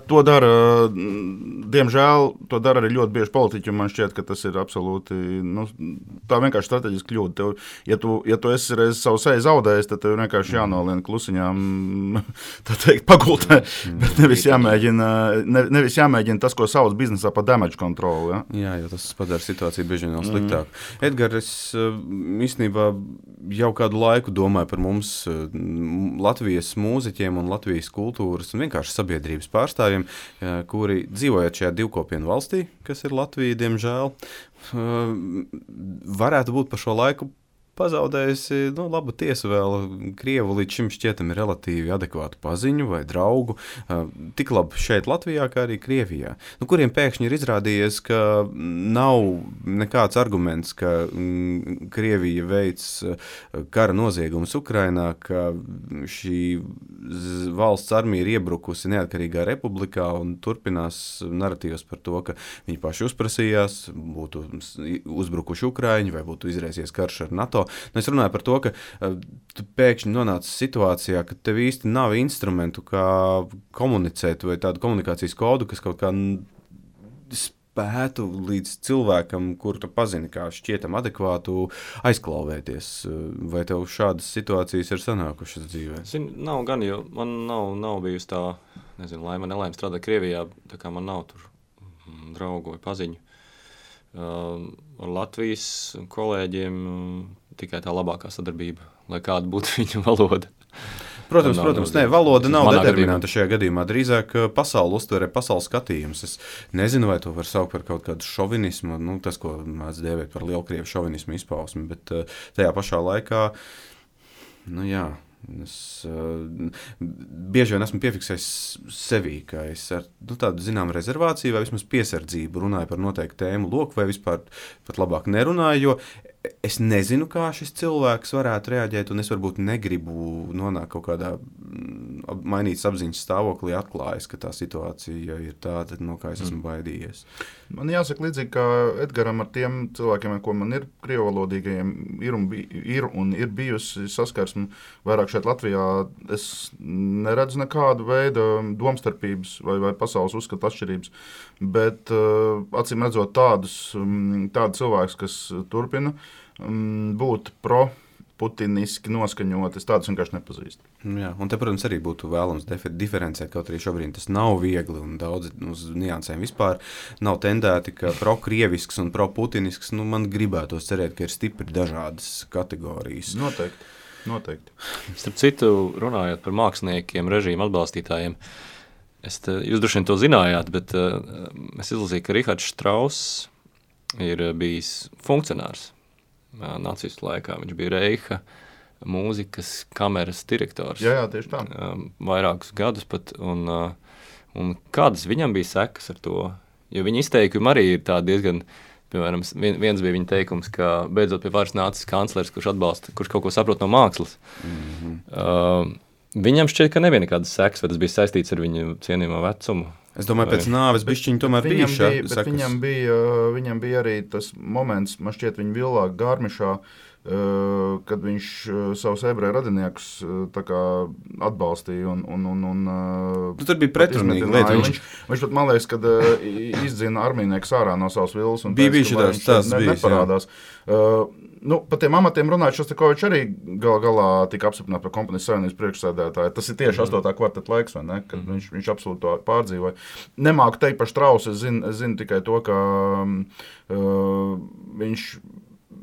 To dara, diemžēl, to dara arī ļoti bieži politiķi, un man šķiet, ka tas ir absolūti, tā vienkārši strateģiski kļūda. Ja tu esi reiz savu seju zaudējis, tad tev vienkārši jānolien klusiņām, tā teikt, pagultē, bet nevis jāmēģina tas, ko sauc biznesā par damage control. Jā, jo tas padara situāciju bieži vien vēl sliktāk. Edgar, es īstenībā jau kādu laiku domāju par mums Latvijas mūziķiem un Latvijas kultūras un vienkārši sabiedrības pārstāvjiem, kuri dzīvojot šajā divkopienu valstī, kas ir Latvija, diemžēl, varētu būt par šo laiku pazaudējusi labu tiesu vēl Krievu līdz šim šķietami relatīvi adekvātu paziņu vai draugu, tik labi šeit Latvijā, kā arī Krievijā, kuriem pēkšņi ir izrādījies, ka nav nekāds arguments, ka Krievija veic kara noziegumus Ukrainā, ka šī valsts armija ir iebrukusi neatkarīgā republikā un turpinās naratīvs par to, ka viņi paši uzprasījās, būtu uzbrukuši Ukraiņi vai būtu izraisies karš ar NATO. Es runāju par to, ka tu pēkšņi nonāci situācijā, ka tev īsti nav instrumentu, kā komunicēt vai tādu komunikācijas kodu, kas kaut kā spētu līdz cilvēkam, kur tu pazini, kā šķietam adekvātu, aizklauvēties. Vai tev šādas situācijas ir sanākušas dzīvē? Nav gan, jo man nav bijusi tā, laime, nelaime strādāt Krievijā, tā kā man nav tur draugu vai paziņu. Ar Latvijas kolēģiem tikai tā labākā sadarbība, lai kāda būtu viņu valoda. Protams, valoda nav determinanta šajā gadījumā. Drīzāk pasauli uztverē, pasaules skatījums. Es nezinu, vai to var saukt par kaut kādu šovinismu, tas, ko mēdz dēvēt par lielkrievu šovinismu izpausmi, bet tajā pašā laikā, es bieži vien esmu piefiksējis sevī, ka es ar tādu zinām rezervāciju vai vismaz piesardzību runāju par noteiktu tēmu loku vai vispār pat labāk nerunāju, jo es nezinu, kā šis cilvēks varētu reaģēt, un es varbūt negribu nonākt kaut kādā mainītas apziņas stāvoklī, atklājas, ka tā situācija ir tāda, no kā es esmu baidījies. Man jāsaka līdzīgi, kā Edgaram ar tiem cilvēkiem, ko man ir krievalodīgajiem, ir bijusi saskarsme vairāk šeit Latvijā. Es neredzu nekādu veidu domstarpības vai pasaules uzskatu atšķirības, bet acīm redzot tādu cilvēkus, kas turpina būt pro-putiniski noskaņot, es tādus vienkārši nepazīstu. Jā, un te, protams, arī būtu vēlams diferencēt, kaut arī šobrīd tas nav viegli un daudz uz niansēm vispār nav tendēti, ka pro-krievisks un pro-putinisks, man gribētos cerēt, ka ir stipri dažādas kategorijas. Noteikti. Starp citu, runājot par māksliniekiem, režīmu atbalstītājiem, jūs droši vien to zinājāt, bet es izlasīju, ka Rihards Štrauss ir bijis funkcionārs nacistu laikā. Viņš bija Reicha mūzikas kameras direktors. Jā, tieši tā. Vairākus gadus pat. Un kādas viņam bija sekas ar to? Jo viņa izteikumi arī ir tādi diezgan, piemēram, viens bija viņa teikums, ka beidzot pie varas nācis kanclers, kurš kaut ko saprot no mākslas. Viņam šķiet, ka nebija nekādas sekas, vai tas bija saistīts ar viņu cienījamo vecumu. Es domāju, pēc nāves bišķiņi tomēr bija sekas. Viņam bija arī tas moments, man šķiet, viņa villā Gārmišā, kad viņš savus ebreju radiniekus tā kā atbalstīja tur bija pretrunīgi lieta. Viņš pat, man liekas, kad izdzina armijnieks ārā no savas villas un bija neparādās. Par tiem amatiem runājot, Šostakovičs arī galā tika apstiprināts par Kompānijas savienības priekšsēdētāju. Tas ir tieši 8. kvarteta laiks, vai ne? Kad viņš absolūti to pārdzīvoja. Nemāku teikt par Štrausu, es zinu tikai to, ka viņš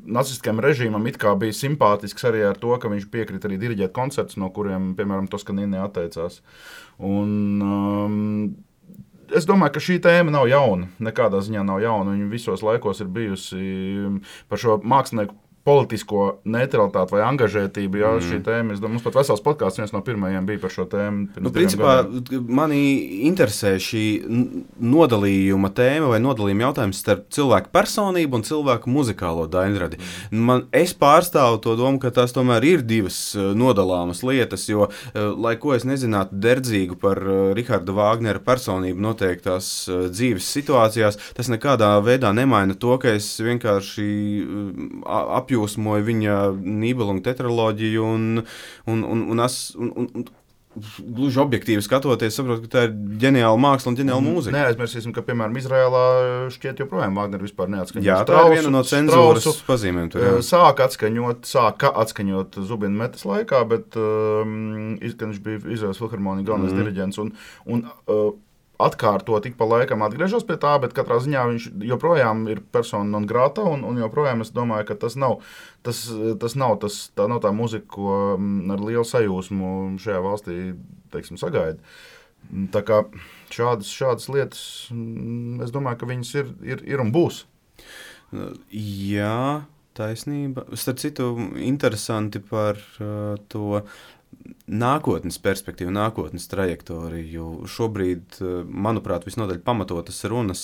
nacistiskajam režīmam it kā bija simpātisks arī ar to, ka viņš piekrita arī diriģēt koncertus, no kuriem, piemēram, Toskanini atteicās. Es domāju, ka šī tēma nav jauna, nekādā ziņā nav jauna. Viņa visos laikos ir bijusi par šo mākslinieku politisko neutralitāti vai angažētību. Jā, šī tēma, es domāju, mums pat vesels podkāsts viens no pirmajiem bija par šo tēmu. Principā mani interesē šī nodalījuma tēma vai nodalījuma jautājums starp cilvēku personību un cilvēku muzikālo daļradi. Es pārstāvu to domu, ka tās tomēr ir divas nodalāmas lietas, jo, lai ko es nezinātu derdzīgu par Riharda Vāgnera personību noteiktās dzīves situācijās, tas nekādā veidā nemaina to, ka es vienkārši apjūsmoju viņa Nībelunga tetraloģiju un gluži objektīvi skatoties, saprotu, ka tā ir ģeniāla māksla un ģeniāla mūzika. Neaizmirsīsim, ka, piemēram, Izrēlā šķiet joprojām Vāgner vispār neatskaņot. Jā, tā ir viena no cenzūras pazīmēm. Sāka atskaņot Zubina Metas laikā, bet kad viņš bija Izraēlas filharmonija galvenais diriģents un atkārtot tik pa laikam atgriežos pie tā, bet katrā ziņā viņš joprojām ir persona non grata un joprojām es domāju, ka tas nav tā muzika, ko ar lielu sajūsmu šajā valstī, teiksim, sagaida. Tā kā šādas lietas, es domāju, ka viņas ir un būs. Jā, taisnība. Starp citu, interesanti par to nākotnes perspektīvu, nākotnes trajektoriju. Šobrīd, manuprāt, visnotaļ pamatotas runas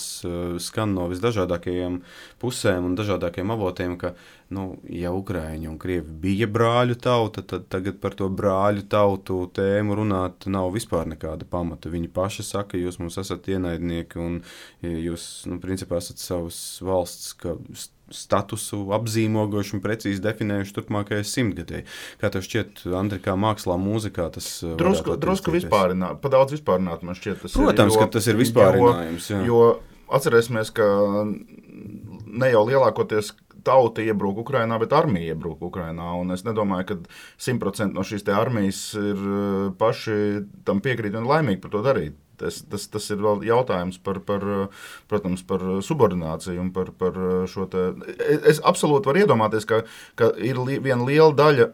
skan no visdažādākajiem pusēm un dažādākajiem avotiem, ka, ja Ukraiņi un Krievi bija brāļu tauta, tad tagad par to brāļu tautu tēmu runāt nav vispār nekāda pamata. Viņi paši saka, jūs mums esat ienaidnieki un jūs, principā, esat savas valsts statusu apzīmogojuši un precīzi definējuši turpmākajai 100-gadēji. Kā tev šķiet, Andri, kā mākslā, mūzikā tas drusku vispārināt, pa daudz vispārināt man šķiet tas Protams, ka tas ir vispārinājums. Jo atcerēsimies, ka ne jau lielākoties tauta iebrūk Ukrainā, bet armija iebrūk Ukrainā, un es nedomāju, ka 100% no šīs te armijas ir paši tam piekrīt un laimīgi par to darīt. Tas ir vēl jautājums protams, par subordināciju un par šo te. Es absolūti varu iedomāties, ka ir viena liela daļa,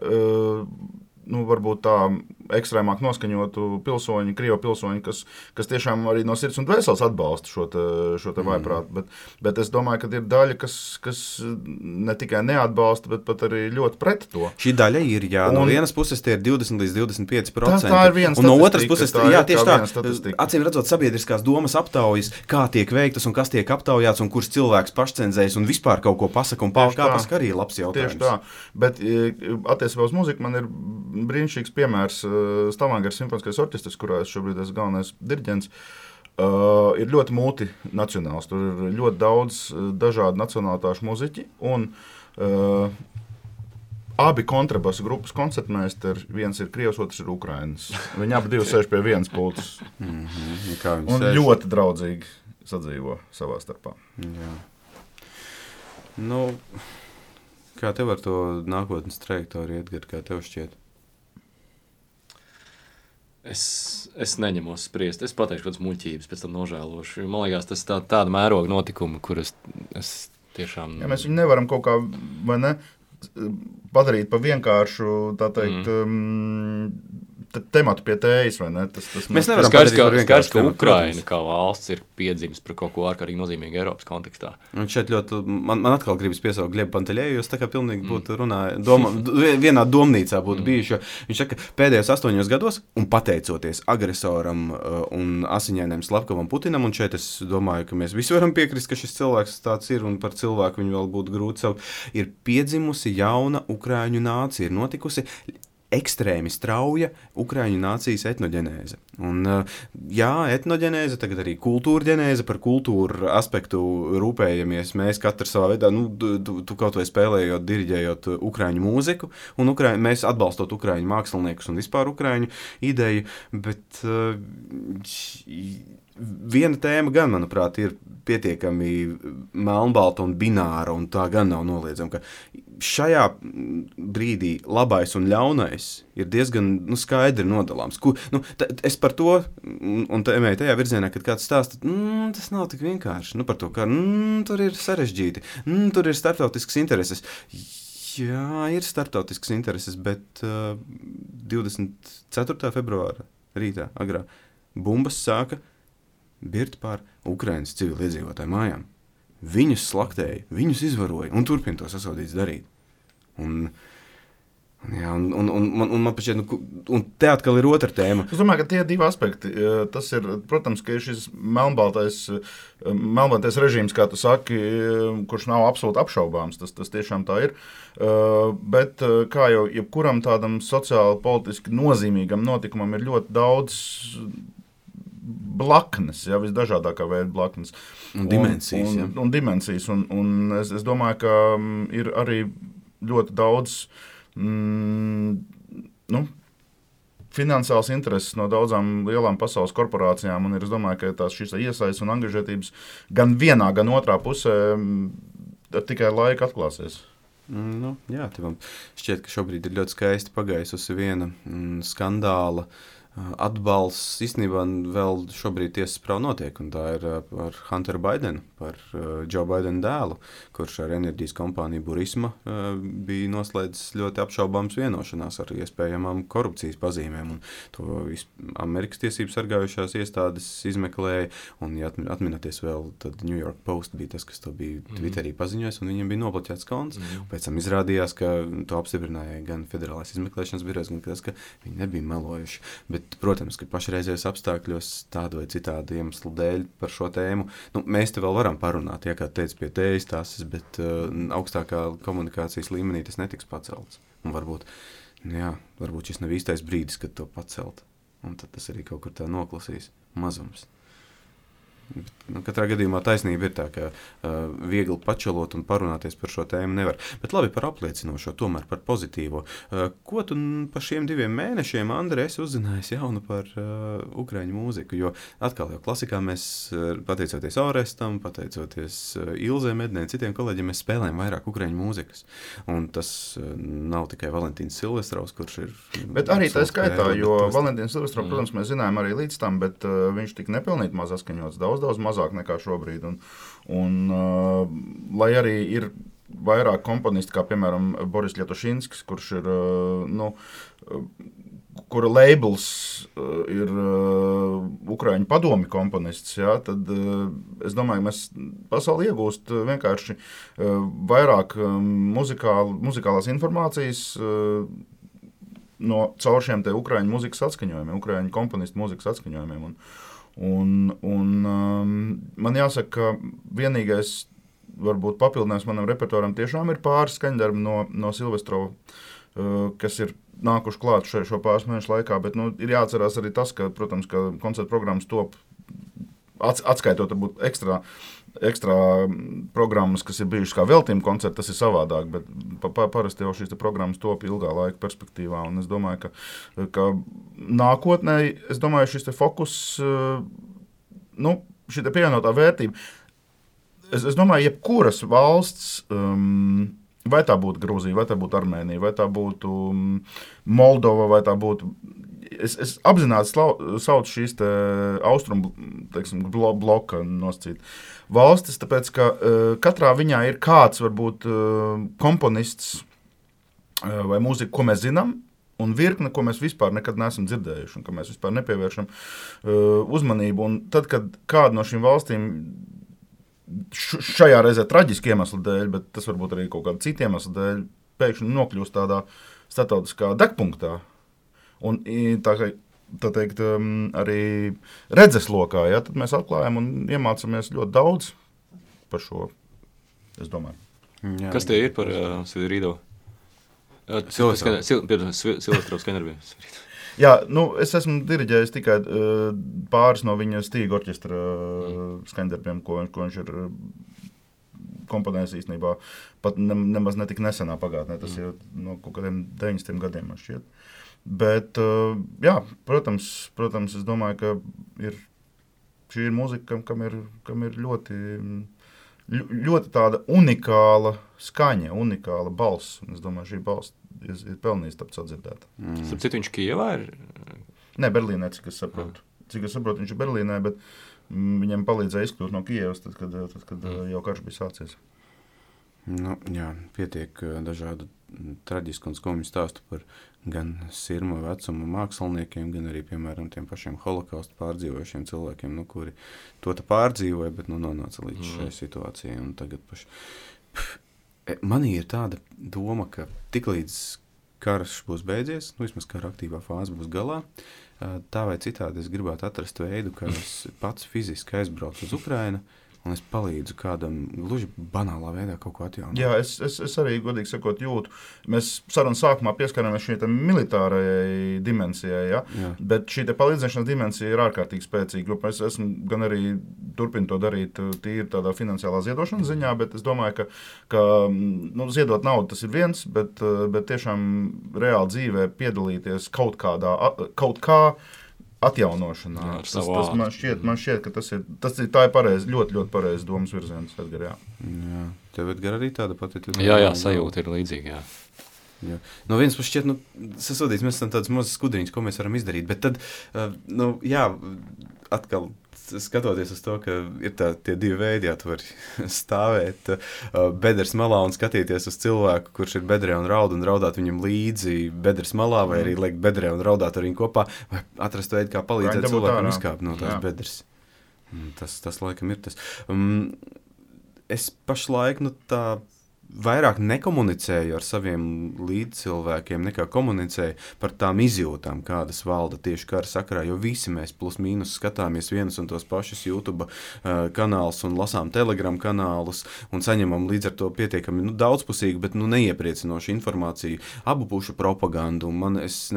varbūt tā ekstrēmāk noskaņotu pilsoņi, Krievu pilsoņi, kas tiešām arī no sirds un dvēseles atbalsta šo te vājprātu, bet es domāju, ka ir daļa, kas ne tikai neatbalsta, bet pat arī ļoti pret to. Šī daļa ir, no vienas puses tie ir 20 līdz 25%. Tā ir viena statistika. Un no otras puses, tieši tā, acīm redzot sabiedriskās domas aptaujas, kā tiek veiktas un kas tiek aptaujāts un kurš cilvēks pašcenzējas un vispār kaut ko pasaka un kā pasaka arī labs jautājums. Tieši tā, bet attiecībā uz muziku man ir brīnišķīgs piemērs Stavanger simfoniskais orķestris, kurā es šobrīd esmu galvenais diriģents, ir ļoti multinacionāls. Tur ir ļoti daudz dažādu nacionālitāšu muziķi un abi kontrabasu grupas koncertmeistari, viens ir Krievs, otrs ir Ukrainas. Viņi abi divi sēž pie vienas pultes. Un ļoti draudzīgi sadzīvo savā starpā. Jā. Kā tev ar to nākotnes trajektoriju, Edgar, kā tev šķiet? Es neņemos spriest. Es pateikšu kādas muļķības, pēc tam nožēlošu. Man liekas, tas tāda mēroga notikuma, kur es tiešām... Ja mēs viņu nevaram kaut kā, vai ne, padarīt pa vienkāršu, tā teikt, tematu pie tējas, vai ne? Mēs nevaram padarīt par vienkāršu tematu. Ukraina kā valsts ir piedzimis par kaut ko ārkārtīgi nozīmīgu Eiropas kontekstā. Un šeit ļoti, man atkal gribas piesaukt Glebu Panteļēju, jo es tā kā pilnīgi būtu runāja, vienā domnīcā būtu bijuši, jo viņš saka, pēdējos 8 gados, un pateicoties agresoram un asiņainiem Slavkovam Putinam, un šeit es domāju, ka mēs visi varam piekrist, ka šis cilvēks tāds ir, un par cilvēku viņu vēl būtu grūti saukt, ir piedzimusi jauna Ukraiņu nācija, ir notikusi ekstrēmi strauja Ukraiņu nācijas etnoģenēze. Un, etnoģenēze, tagad arī kultūrģenēze, par kultūru aspektu rūpējamies mēs katrs savā veidā, tu kaut vai spēlējot, diriģējot Ukraiņu mūziku, un mēs atbalstot Ukraiņu māksliniekus un vispār Ukraiņu ideju, bet viena tēma gan, manuprāt, ir pietiekami melnbalta un bināra, un tā gan nav noliedzama, ka šajā brīdī labais un ļaunais ir diezgan skaidri nodalāms. Es par to, un tajā virzienā, kad kāds stāsta, tas nav tik vienkārši, par to, ka tur ir sarežģīti, tur ir starptautiskas intereses. Jā, ir starptautiskas intereses, bet 24. februāra rītā agrā bumbas sāka birt pār Ukrainas civiliedzīvotāju mājām. Viņus slaktēja, viņus izvaroja un turpina to sasodīts darīt. Un man pašķiet, un te atkal ir otra tēma. Es domāju, ka tie divi aspekti, tas ir, protams, ka ir šis melnbaltais režīms, kā tu saki, kurš nav absolūti apšaubāms, tas tiešām tā ir, bet kā jau jebkuram tādam sociāli politiski nozīmīgam notikumam ir ļoti daudz blaknes, visdažādākā veida blaknes. Un dimensijas, un dimensijas, un es domāju, ka ir arī ļoti daudz finansiāls intereses no daudzām lielām pasaules korporācijām, un es domāju, ka šīs iesaistes un angažētības gan vienā, gan otrā pusē tikai laika atklāsies. Jā, tev šķiet, ka šobrīd ir ļoti skaisti pagaisusi viena skandāla atbalsts īstenībā vēl šobrīd tiesas prāva notiek, un tā ir par Hunteru Baidenu, par Joe Baidenu dēlu, kurš ar enerģijas kompāniju Burisma bija noslēdzis ļoti apšaubāms vienošanās ar iespējamām korupcijas pazīmēm, un to Amerikas tiesības sargājušās iestādes izmeklēja, un, ja atminaties vēl, tad New York Post bija tas, kas to bija Twitterī paziņojis, un viņam bija nobloķēts konts. Pēc tam izrādījās, ka to apstiprināja gan Federālais izmeklēšanas birojs, gan tas, ka viņi nebija melojuši. Bet, protams, ka pašreizējos apstākļos tādu vai citādu iemeslu dēļ par šo tēmu, mēs te vēl varam parunāt, ja kā teica pie tējas tases, bet augstākā komunikācijas līmenī tas netiks pacelts. Un varbūt šis nav īstais brīdis, kad to pacelt. Un tad tas arī kaut kur tā noklasīs mazums. Katrā gadījumā taisnība ir tā, ka viegli pačelot un parunāties par šo tēmu nevar. Bet labi par apliecinošo, tomēr par pozitīvo. Ko tu par šiem 2 mēnešiem, Andri, esi uzzinājis jaunu par ukraiņu mūziku? Jo atkal jau klasikā mēs, pateicoties Orestam, pateicoties Ilzē Mednē, citiem kolēģiem, mēs spēlējam vairāk ukraiņu mūzikas. Un tas nav tikai Valentīns Silvestrovs, kurš ir... Bet arī tā skaitā, jo Valentīns Silvestrovs, protams, mēs zinājām arī līdz tam, bet viņš tik nepilnīt maz askaņots, daudz mazāk nekā šobrīd. Un lai arī ir vairāk komponisti, kā piemēram Boris Ļetošinskis, kurš ir, kura labels ir Ukraiņu padomi komponists, ja, tad es domāju, mēs pasauli iegūst vienkārši vairāk muzikālās informācijas caur šiem te Ukraiņu mūzikas atskaņojumiem, Ukraiņu komponistu mūzikas atskaņojumiem. Un man jāsaka, ka vienīgais varbūt papildinājums manam repertuāram tiešām ir pāris skaņdarbi no Silvestrova, kas ir nākuši klāt šo pāris mēnešu laikā, bet ir jāatcerās arī tas, ka, protams, ka koncerta programmas top atskaitot varbūt ekstra programmas, kas ir bijušas kā veltījuma koncerti, tas ir savādāk, bet parasti jau šīs programmas top ilgā laika perspektīvā, un es domāju, ka nākotnē, es domāju, šis te fokus, šī te pievienotā vērtība, es domāju, jebkuras valsts, vai tā būtu Grūzija, vai tā būtu Armēnija, vai tā būtu Moldova, vai tā būtu... Es apzināti saucu šīs te austrumu, teiksim, bloka nosacīt valstis, tāpēc, ka katrā viņā ir kāds, varbūt, komponists vai mūzika, ko mēs zinām, un virkne, ko mēs vispār nekad neesam dzirdējuši, un ka mēs vispār nepievēršam uzmanību. Un tad, kad kāda no šīm valstīm šajā reizē traģiski iemeslu dēļ, bet tas varbūt arī kaut kāda cita iemeslu dēļ, pēkšņi nokļūst tādā starptautiskā degpunktā. Un tā teikt, arī redzeslokā, ja, tad mēs atklājam un iemācāmies ļoti daudz par šo, es domāju. Jā. Kas tie ir par Svidrīdo? Silvestrovs skaņdarbiem. Jā, es esmu diriģējis tikai pāris no viņa Stīga orķestra skaņdarbiem, ko viņš ir komponējis īstenībā pat nemaz netik nesenā pagātnē, tas ir no kaut kādiem 90 gadiem, man šķiet. Bet, jā, protams, es domāju, ka šī ir mūzika, kam ir ļoti tāda unikāla skaņa, unikāla balss. Un es domāju, šī balss ir pelnījis tapt sadzirdēta. Starp citu, viņš Kijevā ir? Nē, Berlīnē, cik es saprotu. Viņš ir Berlīnē, bet viņam palīdzēja izkļūt no Kijevas, tad, kad jau karš bija sācies. Jā, pietiek dažādu traģisku un skumju stāstu par gan sirma vecuma māksliniekiem, gan arī, piemēram, tiem pašiem holokaustu pārdzīvojušiem cilvēkiem, kuri to pārdzīvoja, bet nonāca līdz šai situācijai. Un tagad manī ir tāda doma, ka tiklīdz karš būs beidzies, vismaz kara aktīvā fāze būs galā, tā vai citādi es gribētu atrast veidu, kā es pats fiziski aizbraucu uz Ukrainu, un es palīdzu kādam gluži banālā veidā kaut ko atjaunot. Jā, es arī, godīgi sakot, jūtu. Mēs sarunas sākumā pieskarāmies šī militārajai dimensijai, ja? Bet šī palīdzēšanas dimensija ir ārkārtīgi spēcīga, jo es esmu gan arī turpinu to darīt tīri tādā finansiālā ziedošanas ziņā, bet es domāju, ka ziedot naudu tas ir viens, bet tiešām reāli dzīvē piedalīties kaut kā atjaunošanā. Tas man šķiet, ka tā ir pareizi, ļoti, ļoti pareizi domas virziens, Edgar, jā. Jā, tev, Edgar, arī tāda pati? Jā, sajūta ir līdzīga, jā. Jo. No vienas puses šķiet, sasodīts, mēs esam tādas mazas skudriņas, ko mēs varam izdarīt, bet tad, atkal skatoties uz to, ka ir tie divi veidi, tu vari stāvēt bedres malā un skatīties uz cilvēku, kurš ir bedrē un raudāt viņam līdzi bedres malā, vai arī liekt bedrē un raudāt ar viņu kopā, vai atrast veidu, kā palīdzēt cilvēkam izkāpt no tās bedres. Tas laikam ir tas. Es pašlaik, tā vairāk nekomunicēju ar saviem līdzcilvēkiem, nekā komunicēju par tām izjūtām, kādas valda tieši kara sakarā, jo visi mēs plus mīnus skatāmies vienus un tos pašus YouTube kanālus un lasām Telegram kanālus un saņemam līdz ar to pietiekami daudzpusīgu, bet neiepriecinošu informāciju, abu pušu propagandu. Es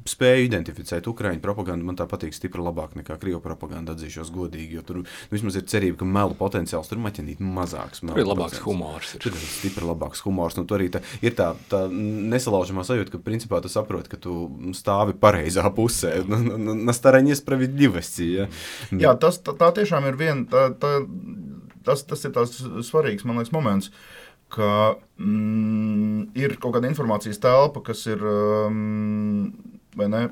spēju identificēt Ukraiņu propagandu, man tā patīk stipri labāk nekā Krievu propaganda, atzīšos godīgi, jo tur vismaz ir cerība, ka melu potenciāls tur maķinīt mazāks. Tur ir labāks humors. Stipri labāks humors. Tur arī ir tā nesalaužamā sajūta, ka principā tu saproti, ka tu stāvi pareizā pusē. На стороне справедливости. Ja? Jā, tā tiešām ir tas ir tās svarīgs, man liekas, moments, ka ir kaut kāda informācijas telpa, kas ir vai ne,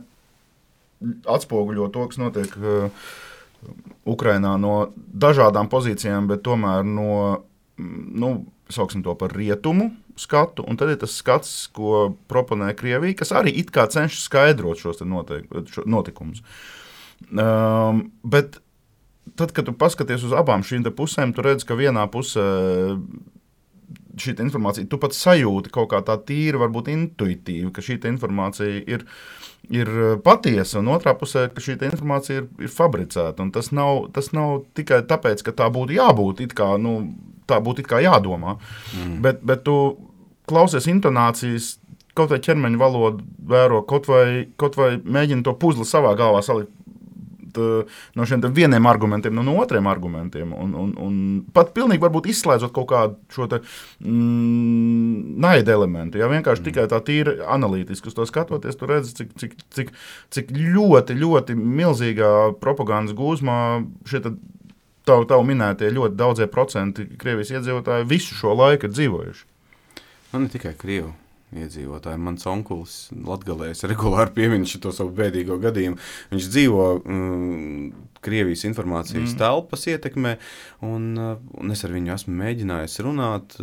atspoguļo to, kas notiek Ukrainā no dažādām pozīcijām, bet tomēr no sauksim to par rietumu skatu, un tad ir tas skats, ko proponē Krievija, kas arī it kā cenšas skaidrot šos notikumus. Bet tad, kad tu paskaties uz abām šīm pusēm, tu redz, ka vienā pusē šī informācija, tu pat sajūti kaut kā tā tīri, varbūt intuitīvi, ka šī informācija ir patiesa, un otrā pusē, ka šī informācija ir fabricēta. Un tas nav tikai tāpēc, ka tā būtu jābūt, tā būtu it kā jādomā. Bet tu klausies intonācijas, kaut vai ķermeņa valodu vēro, kaut vai mēģini to puzli savā galvā salikt no šiem vieniem argumentiem, no otriem argumentiem. Un pat pilnīgi varbūt izslēdzot kaut kādu šo naida elementu. Ja vienkārši tikai tā tīri analītiski uz to skatoties, tu redzi, cik ļoti, ļoti milzīgā propagandas gūzmā šie tavu minētie ļoti daudzie procenti Krievijas iedzīvotāji visu šo laiku ir dzīvojuši. Ne tikai Krievu iedzīvotāji. Mans onkulis Latgalēs regulāri piemin šo savu bēdīgo gadījumu. Viņš dzīvo Krievijas informācijas telpas ietekmē, un es ar viņu esmu mēģinājis runāt.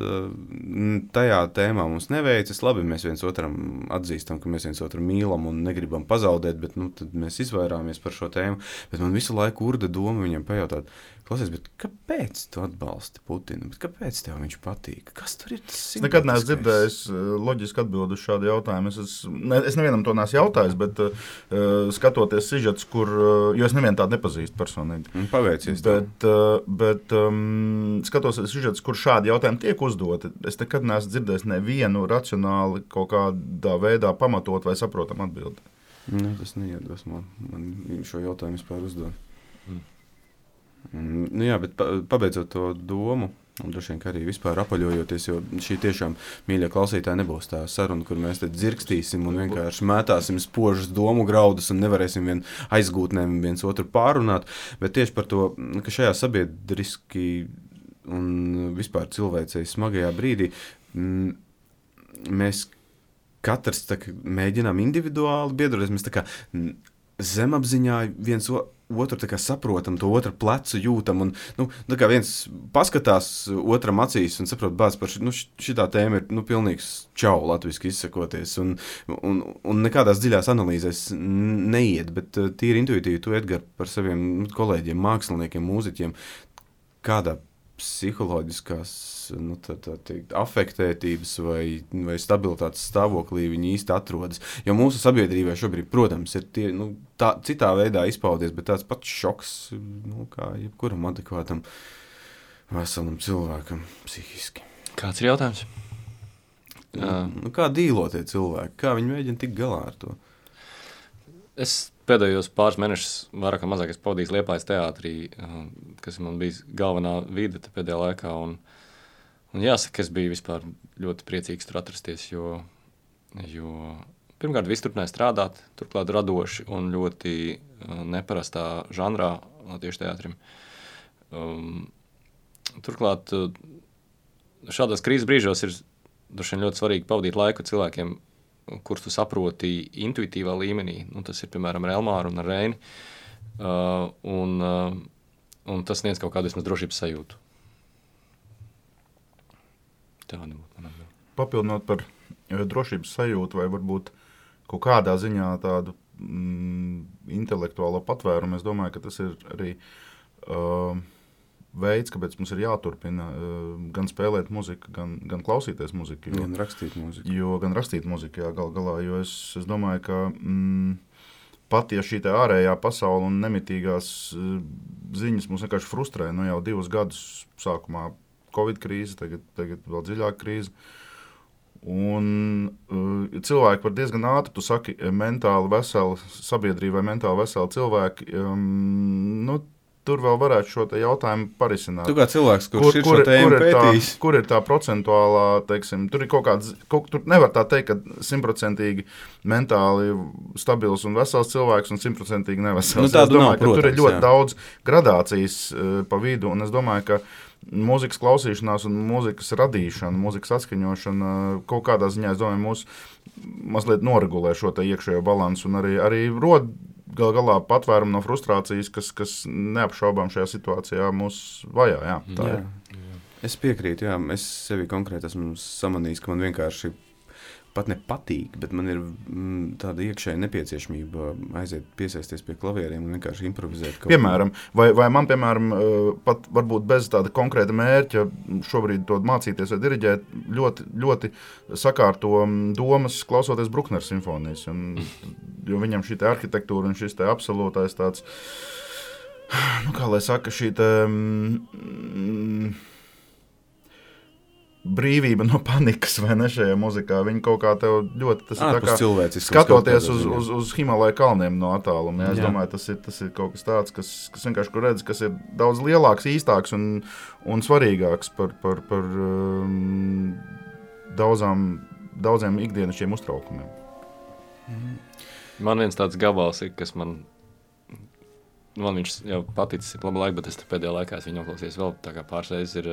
Tajā tēmā mums neveicas. Labi, mēs viens otram atzīstam, ka mēs viens otru mīlam un negribam pazaudēt, bet tad mēs izvairāmies par šo tēmu. Bet man visu laiku urda doma viņam pajautāt, klausies, bet kāpēc tu atbalsti Putinu? Bet kāpēc tev viņš patīk? Kas tur ir tas? Es nekad neesmu dzirdējis loģisku atbildi uz šādu jautājumu. Es nevienam to neesmu jautājis, bet skatoties sižets, jo es nevienu tādu nepazīstu personīgi. Paveicies. Bet skatoties sižets, kur šādi jautājumi tiek uzdoti, es nekad neesmu dzirdējis nevienu racionāli kaut kādā veidā pamatot vai saprotam atbildi. Tas neiedvesmo man šo jautājumu vispār uzdot. Jā, bet pabeidzot to domu, un droši vien, ka arī vispār apaļojoties, jo šī tiešām, mīļie klausītāji, nebūs tā saruna, kur mēs te dzirkstīsim un vienkārši mētāsim spožus domu graudus un nevarēsim vien aizgūtnēm viens otru pārunāt, bet tieši par to, ka šajā sabiedriski un vispār cilvēcei smagajā brīdī mēs katrs mēģinām individuāli biedroties, mēs tā kā zemapziņā viens otru saprotam, to otru plecu jūtam, un kā viens paskatās otram acīs un saprot, bāc, par šitā tēma ir pilnīgs čau, latviski izsakoties, un nekādās dziļās analīzēs neiet, bet tīri intuitīvi tu, Edgar, par saviem kolēģiem, māksliniekiem, mūziķiem, kādā psiholoģiskās afektētības vai stabilitātes stāvoklī viņi īsti atrodas. Jo mūsu sabiedrībā šobrīd, protams, ir tie, citā veidā izpaudies, bet tāds pats šoks, kā jebkuram adekvātam veselam cilvēkam psihiski. Kāds ir jautājums? Kā dīlo tie cilvēki? Kā viņi mēģina tikt galā ar to? Es pēdējos pāris mēnešus vairāk vai mazāk pavadījis Liepājas teātrī, kas man bija galvenā vide pēdējā laikā. Un jāsaka, es biju vispār ļoti priecīgs tur atrasties, jo pirmkārt viss turpināja strādāt, turklāt radoši un ļoti neparastā žanrā tieši teātrim. Turklāt šādās krīzes brīžos ir droši vien ļoti svarīgi pavadīt laiku cilvēkiem, kurus tu saproti intuitīvā līmenī. Nu, tas ir, piemēram, ar Elmāru un ar Reini. Un tas sniedz kaut kādu vismaz drošības sajūtu. Tāda būtu man atbilde. Papildinot par drošības sajūtu vai varbūt kaut kādā ziņā tādu intelektuālo patvērumu, es domāju, ka tas ir arī veids, kāpēc mums ir jāturpina gan spēlēt muziku, gan klausīties muziku. Gan rakstīt muziku. Gan rakstīt muziku, jā, galā, jo es domāju, ka pat ja šī te ārējā pasaule un nemitīgās ziņas mūs vienkārši frustrē, nu jau 2 gadus sākumā Covid krīze, tagad vēl dziļāka krīze. Un cilvēki var diezgan ātri, tu saki, mentāli veseli sabiedrība vai mentāli veseli cilvēki, nu, tur vēl varētu šo te jautājumu parisināt. Tu kā cilvēks, kurš ir šo tēmu pētījis. Kur ir tā procentuālā, teiksim, tur ir kaut kāds, tur nevar tā teikt, ka 100% mentāli stabils un vesels cilvēks un 100% nevesels. Nu, tādu domāju, nav, protams, tur ir ļoti daudz gradācijas pa vidu, un es domāju, ka mūzikas klausīšanās un mūzikas radīšana, mūzikas atskaņošana kaut kādā ziņā, es domāju, mūs mazliet noregulē šo te iekšējo balansu un arī rod galā patvērumu no frustrācijas, kas neapšaubām šajā situācijā mūs vajā. Jā, tā ir. Es piekrītu, jā. Es sevi konkrēti esmu samanījis, ka man vienkārši pat nepatīk, bet man ir tāda iekšēja nepieciešamība aiziet piesaisties pie klavieriem un vienkārši improvizēt. Piemēram, vai man, pat varbūt bez tāda konkrēta mērķa šobrīd to mācīties vai diriģēt, ļoti, ļoti sakārto domas klausoties Bruckner simfonijas, jo viņam šī te arhitektūra un šis te absolūtais tāds, nu kā lai saka, šī te brīvība no panikas, vai ne, šajā muzikā. Viņi kaut kā tev ļoti, tas ir tā kā skatoties uz Himalaju kalniem no attāluma. Ja? Es domāju, tas ir kaut kas tāds, kas vienkārši, kur redz, kas ir daudz lielāks, īstāks un svarīgāks par daudziem ikdienišķiem uztraukumiem. Man viens tāds gabals ir, kas man viņš jau paticis labu laiku, bet es pēdējā laikā viņu noklausījos vēl tā kā pāris reizes ir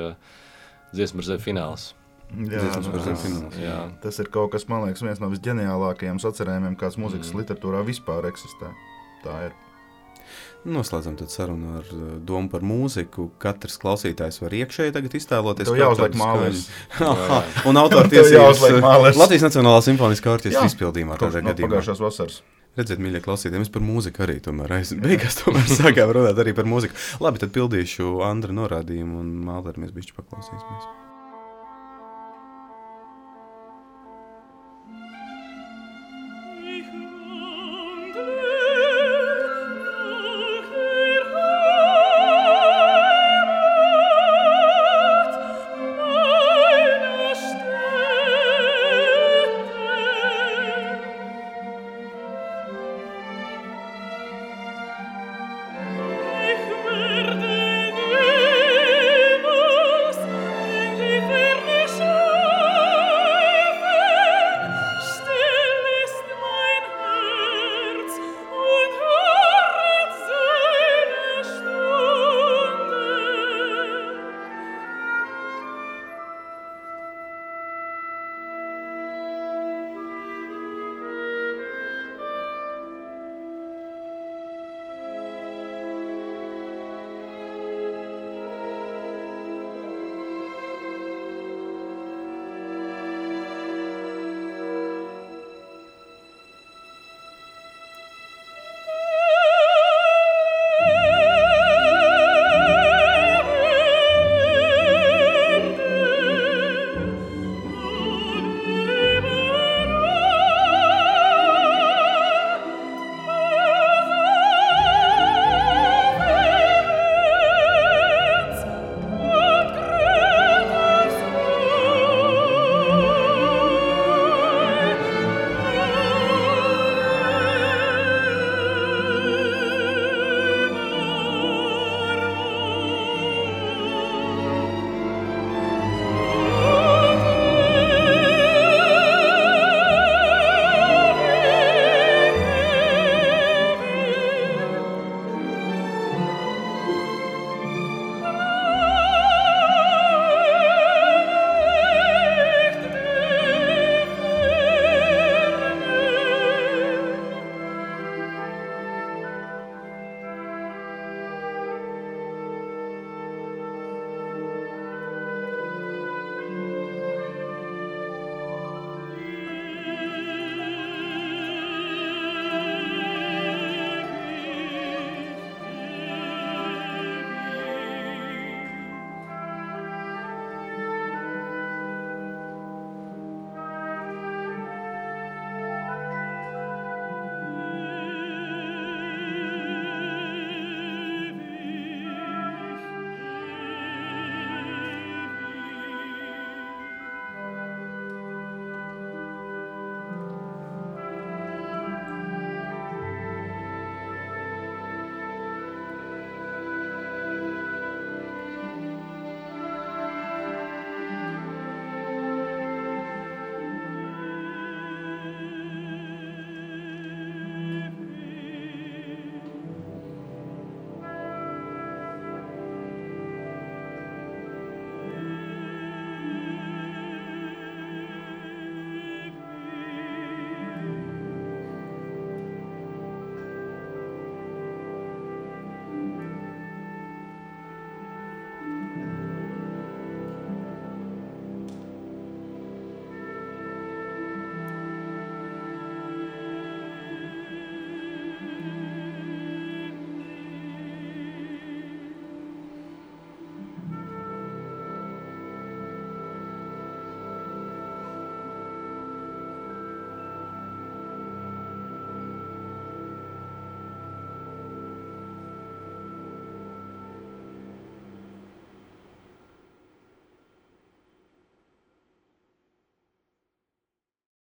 Dziesma par zemi fināls. Jā. Tas ir kaut kas, man liekas, viens no visģeniālākajiem sacerējumiem, kāds mūzikas literatūrā vispār eksistē. Tā ir. Noslēdzam tad sarunu ar domu par mūziku. Katrs klausītājs var iekšēji tagad iztēloties. Tev jāuzliek mālēs. Un autortiesības Latvijas Nacionālā simfoniskā orķestra izpildījumā tādā gadījumā. Pagājušās vasaras. Redziet, mīļie klausītāji, mēs par mūziku arī tomēr beigās sākām runāt arī par mūziku. Labi, tad pildīšu Andra norādījumu un Māleri mēs bišķi paklausīsimies.